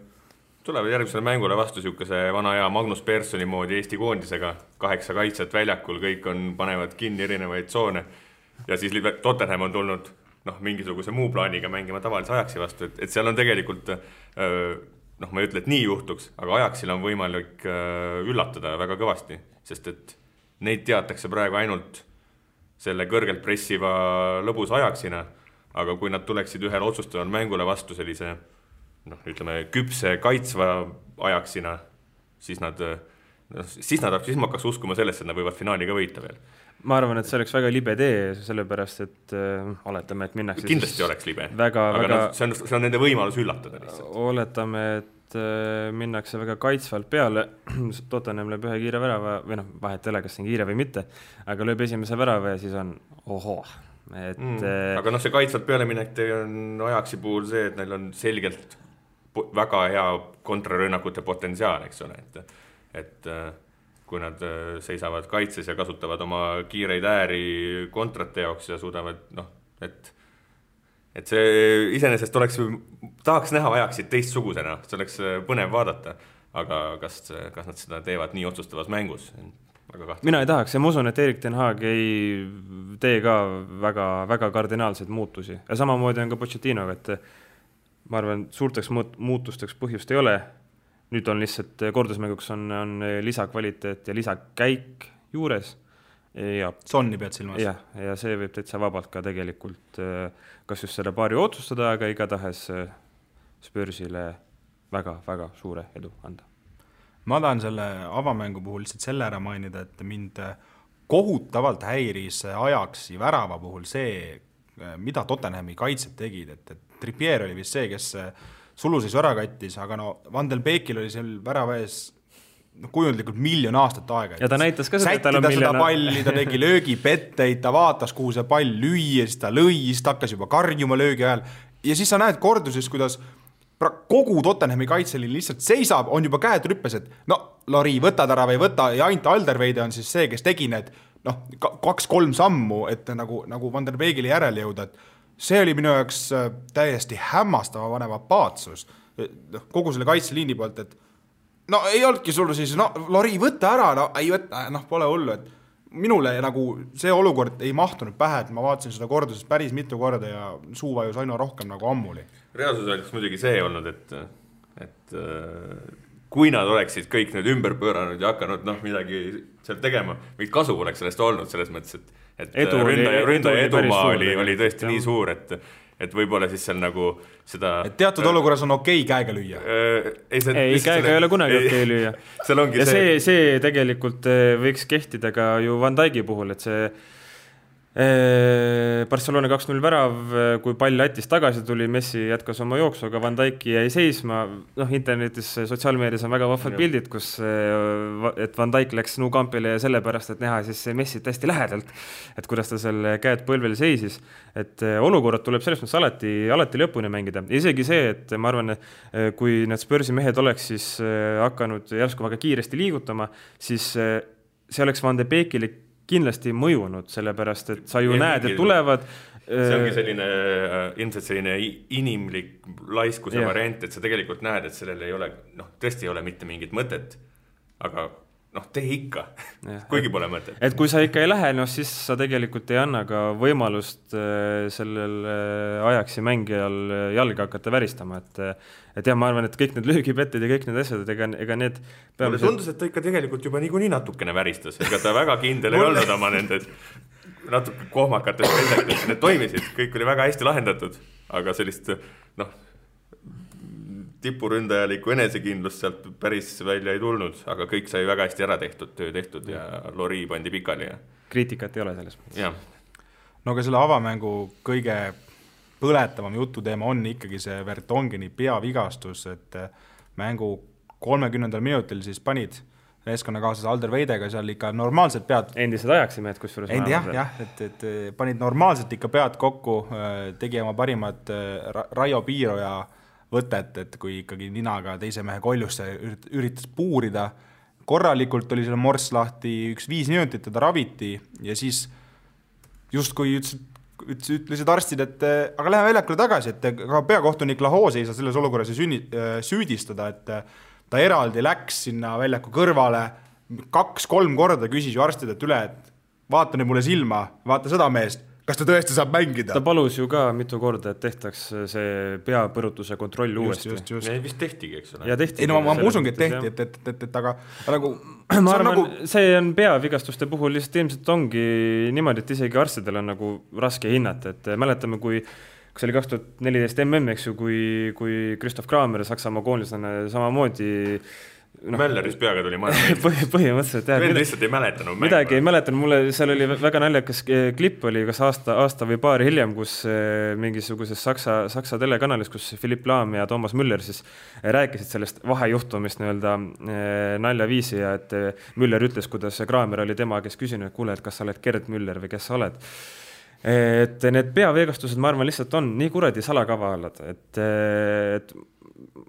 tulevad järgmisele mängule vastu siukese vana hea Magnus Perssoni moodi Eesti koondisega, 8 kaitsjat väljakul, kõik panevad kinni erinevaid tsoone ja siis Tottenham on tulnud mingisuguse muu plaaniga mängima tavalise Ajaxi vastu, et seal on tegelikult, ma ei ütle, et nii juhtuks, aga Ajaxil on võimalik üllatada väga kõvasti, sest et neid teatakse praegu ainult selle kõrgelt pressiva lõbus Ajaxina, aga kui nad tuleksid ühel otsustaval mängule vastu sellise, ütleme, küpse kaitsva Ajaxina, siis ma hakkaks uskuma sellesse, et nad võivad finaali ka võita veel. Ma arvan, et see oleks väga libe tee, sellepärast, et oletame, et minnakse... Kindlasti oleks libe, aga see on nende võimalus üllatada lihtsalt. Oletame, et minnakse väga kaitsvalt peale, Tottenham lööb ühe kiire värava, või vahet ei ole, kas see on kiire või mitte, aga lööb esimese värava ja siis on aga see kaitsvalt pealeminek on Ajaxi puhul see, et neil on selgelt väga hea kontrarünnakute potentsiaal, eks ole, et kui nad seisavad kaitses ja kasutavad oma kiireid ääri kontrate jaoks ja suudavad, et see iseenesest tahaks näha Ajaxit teistsugusena, see oleks põnev vaadata, aga kas nad seda teevad nii otsustavas mängus? Mina ei tahaks ja ma usun, et Erik Ten Hag ei tee ka väga, väga kardinaalseid muutusi. Ja samamoodi on ka Pochettinoga, et ma arvan, suurteks muutusteks põhjust ei ole. Nüüd on lihtsalt kordusmänguks on lisakvaliteet ja lisakäik juures. Sonni pead silmas. Ja see võib täitsa vabalt ka tegelikult kas just selle paari otsustada, aga igatahes Spursile väga, väga suure edu anda. Ma tahan selle avamängu puhul lihtsalt selle ära mainida, et mind kohutavalt häiris Ajaxi värava puhul see, mida Tottenhami kaitsed tegid, et Trippier oli vist see, kes suluseis ära kattis, aga Van den Beekil oli seal värava ees kujundlikult 1 miljon aastat aega. Ja ta näitas ka seda, et tal on seda palli, ta tegi löögipetteid, ta vaatas, kuhu see pall lüüa, siis ta lõi, siis ta hakkas juba karjuma löögi ajal. Ja siis sa näed korduses, kuidas kogu Tottenhami kaitseli lihtsalt seisab, on juba käed rüppes, et Lori, võtad ära või võta, ja ainult Alderweide on siis see, kes tegi need 2-3 sammu, et nagu Van der Beekile järele jõuda, et see oli minu jaoks täiesti hämmastava vanema paatsus kogu selle kaitseliini poolt, et ei olnudki sul siis, Lori, võta ära, ei võtta, pole hullu, et minule see olukord ei mahtunud pähe, et ma vaatasin seda korduses päris mitu korda ja suuvajus aina rohkem nagu ammuli. Reaalsus oleks muidugi see olnud, et kui nad oleksid kõik need ümber pööranud ja hakanud midagi seal tegema, mingit kasu oleks sellest olnud selles mõttes, et ründaja edumaa oli tõesti nii suur, et võib-olla siis seal nagu seda... Et teatud olukorras on okei käega lüüa. Ei, käega ei ole kunagi okei lüüa. Ja see tegelikult võiks kehtida ka ju Van Dijki puhul, et see Barcelona 2-0 värav, kui pall Lätist tagasi tuli, Messi jätkas oma jooksu, aga Van Dijk jäi seisma. Internetis, sotsiaalmeedias on väga vahvad pildid, kus et Van Dijk läks Nou Campile sellepärast, et näha siis Messit hästi lähedalt, et kuidas ta selle käed põlvel seisis. Et olukorrad tuleb selles mõttes alati lõpuni mängida. Isegi see, et ma arvan, kui need Spursi mehed oleks siis hakanud järsku väga kiiresti liigutama, siis see oleks Van de Beekile kindlasti mõjunud, sellepärast, et sa ju näed, et tulevad. See ongi selline, ilmselt selline inimlik laiskuse variant, et sa tegelikult näed, et sellel ei ole, tõesti ei ole mitte mingit mõtet, aga tee ikka, kuigi pole mõtet. Et kui sa ikka ei lähe, siis sa tegelikult ei anna ka võimalust sellel ajaksi mängijal jalga hakata väristama, et ma arvan, et kõik need löögipetted ja kõik need asjad, ega need mulle tundus, et ta ikka tegelikult juba niikuinii natukene väristas, ega ta väga kindel ei olnud oma nendes natuke kohmakates pettetes, need toimisid, kõik oli väga hästi lahendatud, aga sellist tipuründajalikku enesekindlust sealt päris välja ei tulnud, aga kõik sai väga hästi ära tehtud, töö tehtud ja Lori pandi pikali. Kriitikat ei ole selles. No aga selle avamängu kõige põletavam jututeema on ikkagi see Vertongeni peavigastus, et mängu 30. minutil siis panid meeskonnakaaslase Alder Weidega seal ikka normaalselt pead. Endised ajaksimehed, kus suures et panid normaalselt ikka pead kokku, tegi oma parimad Raio Piiroja võtet, et kui ikkagi ninaga teise mehe koljusse üritas puurida. Korralikult oli selle morss lahti 5 minutit, teda raviti ja siis just kui ütlesid arstid, et aga lähe väljakule tagasi, et ka peakohtunik Lahose ei saa selles olukorras süüdistada, et ta eraldi läks sinna väljaku kõrvale 2-3 korda küsis ju arstid, et üle, et vaata nüüd mulle silma, vaata seda meest, kas ta tõesti saab mängida? Ta palus ju ka mitu korda, et tehtaks see peapõrutuse kontroll uuesti. Just. Vist tehtigi, eks ole. Ei, ma usungi, et tehti, et aga nagu... Ma arvan, see on peavigastuste puhul lihtsalt ilmselt ongi niimoodi, et isegi arstidel on nagu raske hinnata, et mäletame, kui see oli 2014 eks ju, kui Christoph Kramer Saksamaa koonlisena samamoodi Mälleris peaga tuli maja. Põhimõtteliselt, jah. Veel lihtsalt ei mäletanud. Midagi ei mäletanud. Mulle seal oli väga naljakas klipp oli kas aasta või paar hiljem, kus mingisuguses Saksa telekanalis, kus Philipp Lahm ja Thomas Müller siis rääkisid sellest vahejuhtumist naljaviisi ja et Müller ütles, kuidas Kramer oli tema, kes küsinud, et kuule, et kas sa oled Gerd Müller või kes sa oled. Et need peaveegastused, ma arvan, lihtsalt on nii kuradi salakavalad, et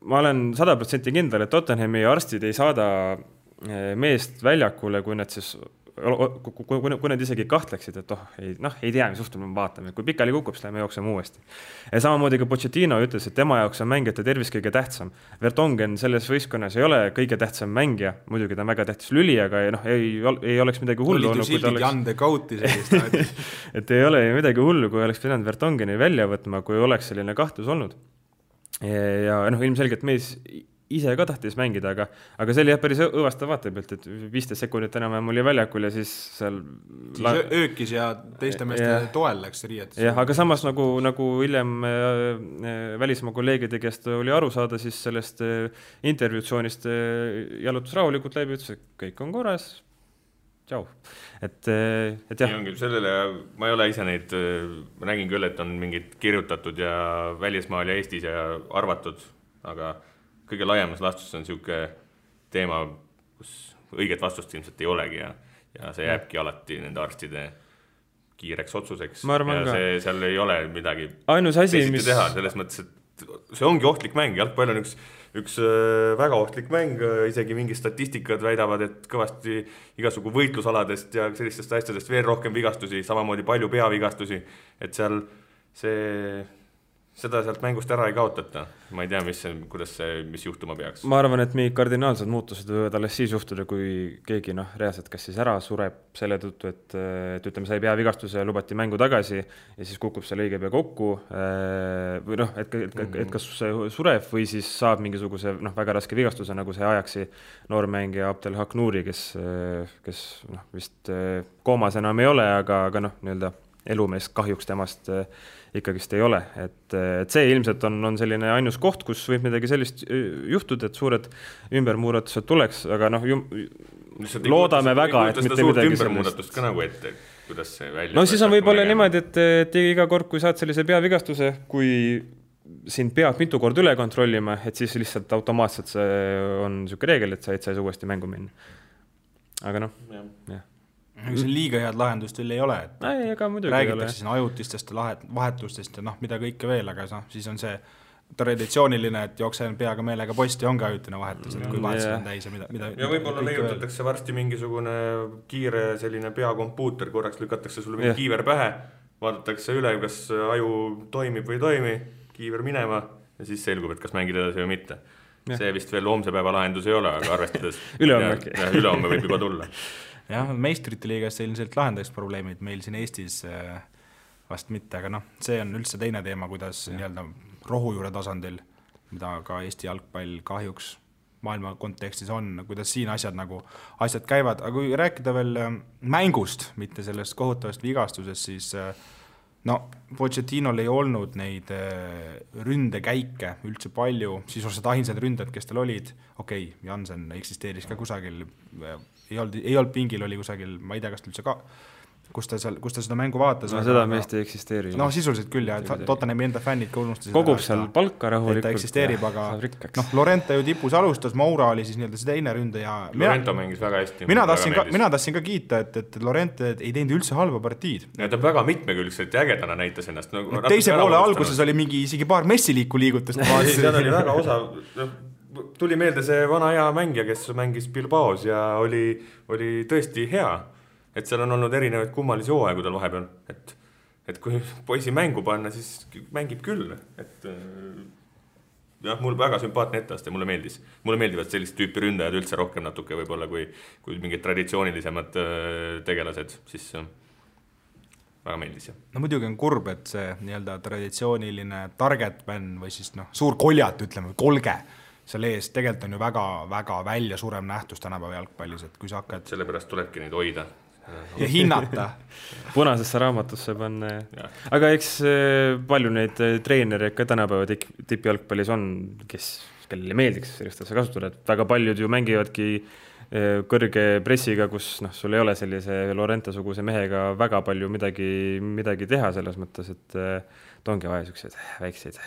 ma olen 100% kindel, et Tottenhami arstid ei saada meest väljakule, kui nad siis, kui nad isegi kahtleksid, et ei tea, mis juhtub, me vaatame. Kui pikali kukub, siis läheme jookseme uuesti. Ja samamoodi ka Pochettino ütles, et tema jaoks on mängijate tervis kõige tähtsam. Vertonghen selles võistkonnas ei ole kõige tähtsam mängija, muidugi ta on väga tähtis lüli, aga ei oleks midagi hullu. Et ei ole midagi hullu, kui oleks pidanud Vertongheni välja võtma, kui oleks selline kahtlus olnud. Ja ilmselgelt mees ise ka tahtis mängida, aga see oli päris õvastav vaatepealt, et 15 sekundit enam oli väljakul ja siis seal öökis ja teiste meeste toel läks riietus. Jah, aga samas nagu hiljem välismaa kolleegide käest oli aru saada, siis sellest intervjuutsioonist jalutus rahulikult läbi, ütles, et kõik on korras. Tšau. Et jah. Sellele, ma ei ole ise neid, ma nägin küll, et on mingid kirjutatud ja välismaal ja Eestis ja arvatud, aga kõige laiemas lastus on niisugune teema, kus õiget vastust ilmselt ei olegi ja see jääbki alati nende arstide kiireks otsuseks. Ja seal ei ole midagi teha, selles mõttes, et see ongi ohtlik mäng, jalgpall on üks väga ohtlik mäng, isegi mingi statistikad väidavad, et kõvasti igasugu võitlusaladest ja sellistest asjadest veel rohkem vigastusi, samamoodi palju peavigastusi, et seal seda sealt mängust ära ei kaotata. Ma ei tea, mis juhtuma peaks. Ma arvan, et mingid kardinaalsed muutused võivad alles siis juhtuda, kui keegi reaalselt kas siis ära sureb selle tõttu, et ütleme, sai peavigastuse ja lubati mängu tagasi ja siis kukub seal õige pea kokku või et kas sureb või siis saab mingisuguse väga raske vigastuse, nagu see ajaksi noormängija Abdel Haknouri, kes vist koomas enam ei ole, aga elumees kahjuks temast ikkagist ei ole. Et see ilmselt on selline ainus koht, kus võib midagi sellist juhtuda, et suured ümbermuuratused tuleks, aga loodame väga, et mitte midagi sellist. Ka nagu ette, kuidas see välja... No siis on võib-olla niimoodi, et iga kord, kui saad sellise peavigastuse, kui sind peab mitu kord üle kontrollima, et siis lihtsalt automaatselt see on niisugune reegel, et sa ei saa uuesti mängu minna. Aga noh, jah. See liiga head lahendust veel ei ole, et räägitakse siin ajutistest vahetustest ja mida kõike veel, aga siis on see traditsiooniline, et jooksen peaga meelega posti ongi ajutine vahetus, et kui vahetused on täis ja mida ja võib-olla leiutatakse varsti mingisugune kiire selline peakompuuter, korraks lükatakse sulle mingi kiiver pähe, vaadatakse üle, kas aju toimib või ei toimi, kiiver minema ja siis selgub, et kas mängid edasi või mitte. See vist veel homse päeva lahendus ei ole, aga arvestades ülehomme võib juba tulla. Jah, meistrite liigas ilmselt lahendaks probleemid meil siin Eestis vast mitte, aga see on üldse teine teema, kuidas nii-öelda rohujuure tasandil, mida ka Eesti jalgpall kahjuks maailma kontekstis on, kuidas siin asjad käivad, aga kui rääkida veel mängust, mitte sellest kohutavast vigastusest, siis Pochettinol ei olnud neid ründekäike üldse palju, sisuliselt ainsad ründajad, kes tal olid, Jansen eksisteeris ka kusagil, ei olnud pingil, oli kusagil, ma ei tea, kas üldse ka, kus ta seda mängu vaatas. Seda meest ei eksisteeri. Sisuliselt küll, ja Tottenhami enda fännid ka unustasid. Kogub seal palka rahulikult. Ta eksisteerib, aga Lorente ju tipus alustas, Moura oli siis nii-öelda see teine ründe ja... Lorente mängis väga hästi. Mina tahtsin ka kiita, et Lorente ei teinud üldse halba partiid. Ja ta väga mitmekülgselt ja ägedana näitas ennast. Teise poole alguses oli isegi paar messiliiku liigutust. Seal oli väga osa... Tuli meelde see vana hea mängija, kes mängis Bilbaos ja oli tõesti hea. Et seal on olnud erinevaid kummalisi hooaegu tal vahepeal, et kui poisi mängu panna, siis mängib küll. Mul väga sümpaatne etteaste, mulle meeldis. Mulle meeldivad sellist tüüpi ründajad üldse rohkem natuke võib-olla kui mingid traditsioonilisemad tegelased, siis väga meeldis. Muidugi on kurb, et see nii-öelda traditsiooniline target man või siis suur koljat, ütleme, kolge seal ees, tegelikult on ju väga välja surem nähtus tänapäeva jalgpallis, et kui sa hakkad... Sellepärast tulebki neid hoida. Ja hinnata. Punasesse raamatusse panna. Aga eks palju neid treenereid ka tänapäeva tippjalgpallis on, kellele meeldiks sellist asja kasutada, et väga paljud ju mängivadki kõrge pressiga, kus sul ei ole sellise Lorente-suguse mehega väga palju midagi teha selles mõttes, et ongi vaja väikseid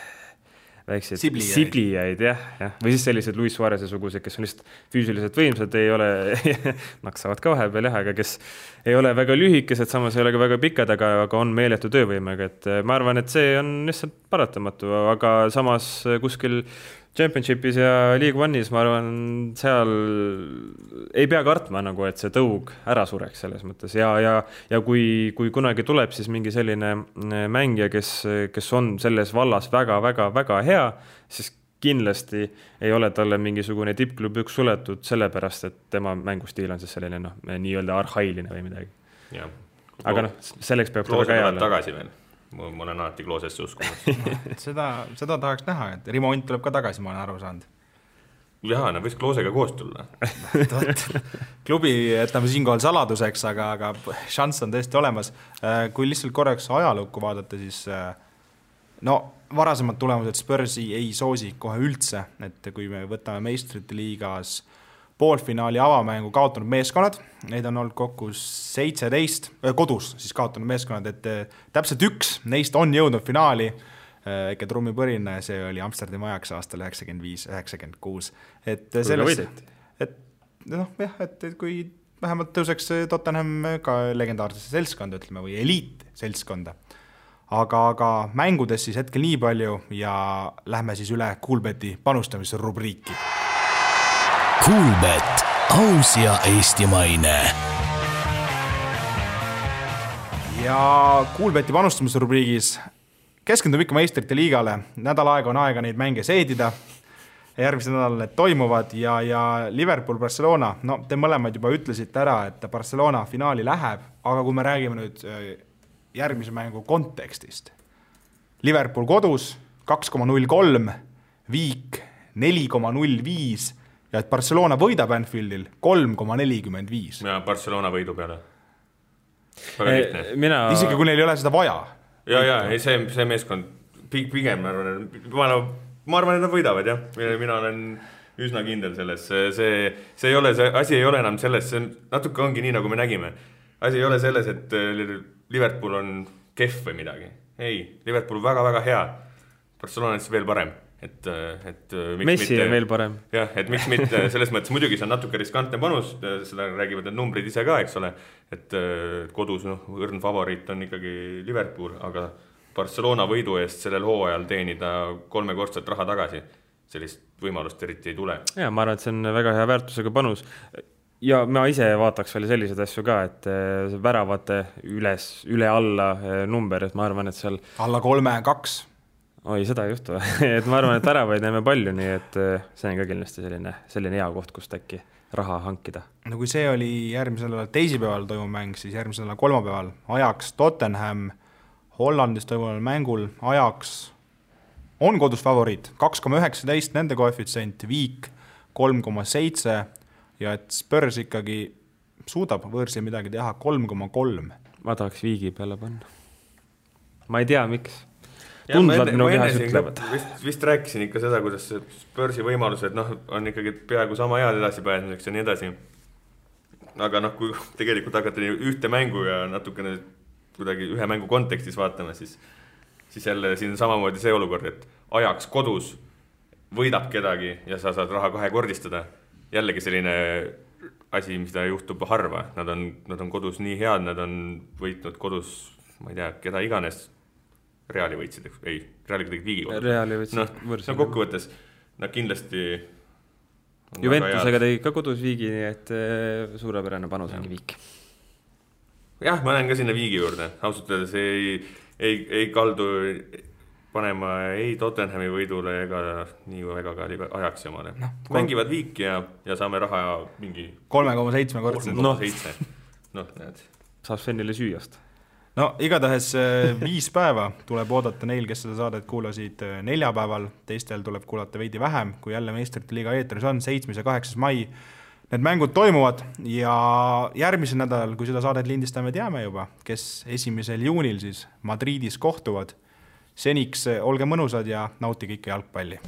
siblijaid, jah. Või siis sellised Luis Suarese sugused, kes on lihtsalt füüsiliselt võimsad, ei ole, naksavad ka vahepeal, aga kes ei ole väga lühikesed, samas ei ole ka väga pikad, aga on meeletu töövõimega, et ma arvan, et see on lihtsalt paratamatu, aga samas kuskil Championshipis ja League One'is, ma arvan, seal ei pea kartma, et see tõug ära sureks selles mõttes ja kui kunagi tuleb siis mingi selline mängija, kes on selles vallas väga hea, siis kindlasti ei ole talle mingisugune tippklub üks suletud sellepärast, et tema mängustiil on siis selline nii-öelda arhailine või midagi. Ja. Aga selleks peab ta väga hea tagasi veel. Ma olen alati Kloosesse uskunud. Seda tahaks näha, et Rimont tuleb ka tagasi, ma olen aru saanud. Jaa, võiks Kloosega koos tulla. Klubi jätame siinkohal saladuseks, aga šanss on tõesti olemas. Kui lihtsalt korraks ajalukku vaadata, siis varasemad tulemused Spursi ei soosi kohe üldse, et kui me võtame meistrite liigas poolfinaali avamängu kaotanud meeskonnad, neid on olnud kokku 17, kodus siis kaotanud meeskonnad, et täpselt üks neist on jõudnud finaali, ikka trummipõrine, see oli Amsterdami Ajax aastal 95-96. Et kui vähemalt tõuseks Tottenham ka legendaarsesse seltskonda, ütleme, või eliit seltskonda. Aga mängudes siis hetkel nii palju ja lähme siis üle Coolbeti panustamise rubriiki. Coolbet, aus ja eestimaine. Ja Coolbeti panustamise rubriigis keskendume ikka meistrite liigale. Nädal aega on aega neid mänge seedida. Järgmisel nädalal need toimuvad ja Liverpool-Barcelona, te mõlemad juba ütlesite ära, et Barcelona finaali läheb, aga kui me räägime nüüd järgmise mängu kontekstist. Liverpool kodus 2,03, Viik 4,05 ja et Barcelona võidab Anfieldil 3,45. Ja Barcelona võidu peale. Isegi kui neil ei ole seda vaja. See meeskond pigem, ma arvan, et nad võidavad, jah. Mina olen üsna kindel selles. See ei ole, see asi ei ole enam selles, see natuke ongi nii, nagu me nägime. Asi ei ole selles, et Liverpool on kehv või midagi. Ei, Liverpool on väga-väga hea. Barcelona on veel parem. Messi on veel parem. Jah, et miks mitte, selles mõttes muidugi see on natuke riskantne panus, seda räägivad need numbrid ise ka, eks ole, et kodus õrn favoriit on ikkagi Liverpool, aga Barcelona võidu eest sellel hooajal teenida 3-kordset raha tagasi, sellist võimalust eriti ei tule. Ja, ma arvan, et see on väga hea väärtusega panus ja ma ise vaataks veel sellised asju ka, et väravate üle alla number, et ma arvan, et seal alla 3-2 Oi, seda ei juhtu. Et ma arvan, et väravaid näeme palju, nii et see on ka kindlasti selline hea koht, kust äkki raha hankida. No kui see oli järgmisel teisipäeval toimuv mäng, siis järgmisel kolmapäeval Ajax Tottenham Hollandis toimuval mängul Ajax on kodus favoriit, 2,19 nende koefitsient, Viik 3,7 ja et Spurs ikkagi suudab võõrsil midagi teha 3,3. Ma tahaks Viigi peale panna. Ma ei tea, miks. Ma vist rääkisin ikka seda, kuidas Spursi võimalused on ikkagi peaaegu sama head edasi pääsmiseks ja nii edasi. Aga kui tegelikult hakata ühte mängu ja natukene kuidagi ühe mängu kontekstis vaatama, siis jälle siin on samamoodi see olukord, et Ajax kodus võidab kedagi ja sa saad raha 2-kordistada. Jällegi selline asi, mis ta juhtub harva. Nad on kodus nii head, nad on võitnud kodus, ma ei tea, keda iganes Reali võitsid, ei, Reali kuidagi Viigi kodus. Reali võitsid võrsil. Kokkuvõttes, nad kindlasti Juventusega tegi ka kodus Viigi, nii et suurepärane panus ongi Viik. Jah, ma lähen ka sinna Viigi juurde. Ausalt öeldes ei kaldu panema ei Tottenhami võidule ega nii väga ka Ajaxi omale. Mängivad Viik ja saame raha mingi 3,7 kordselt. 3,7. Saab Svenile süüast. No igatahes 5 päeva tuleb oodata neil, kes seda saadet kuulasid neljapäeval, teistel tuleb kuulata veidi vähem, kui jälle Meistrite liiga eetris on 7. ja 8. mai. Need mängud toimuvad ja järgmisel nädalal, kui seda saadet lindistame, teame juba, kes 1. juunil siis Madridis kohtuvad. Seniks olge mõnusad ja nautige ikka jalgpalli.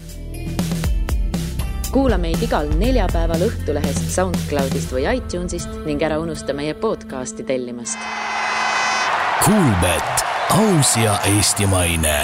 Kuula meid igal neljapäeval Õhtulehest, SoundCloudist või iTunesist ning ära unusta meie podcasti tellimast. Kuulbet, aus ja eestimaine.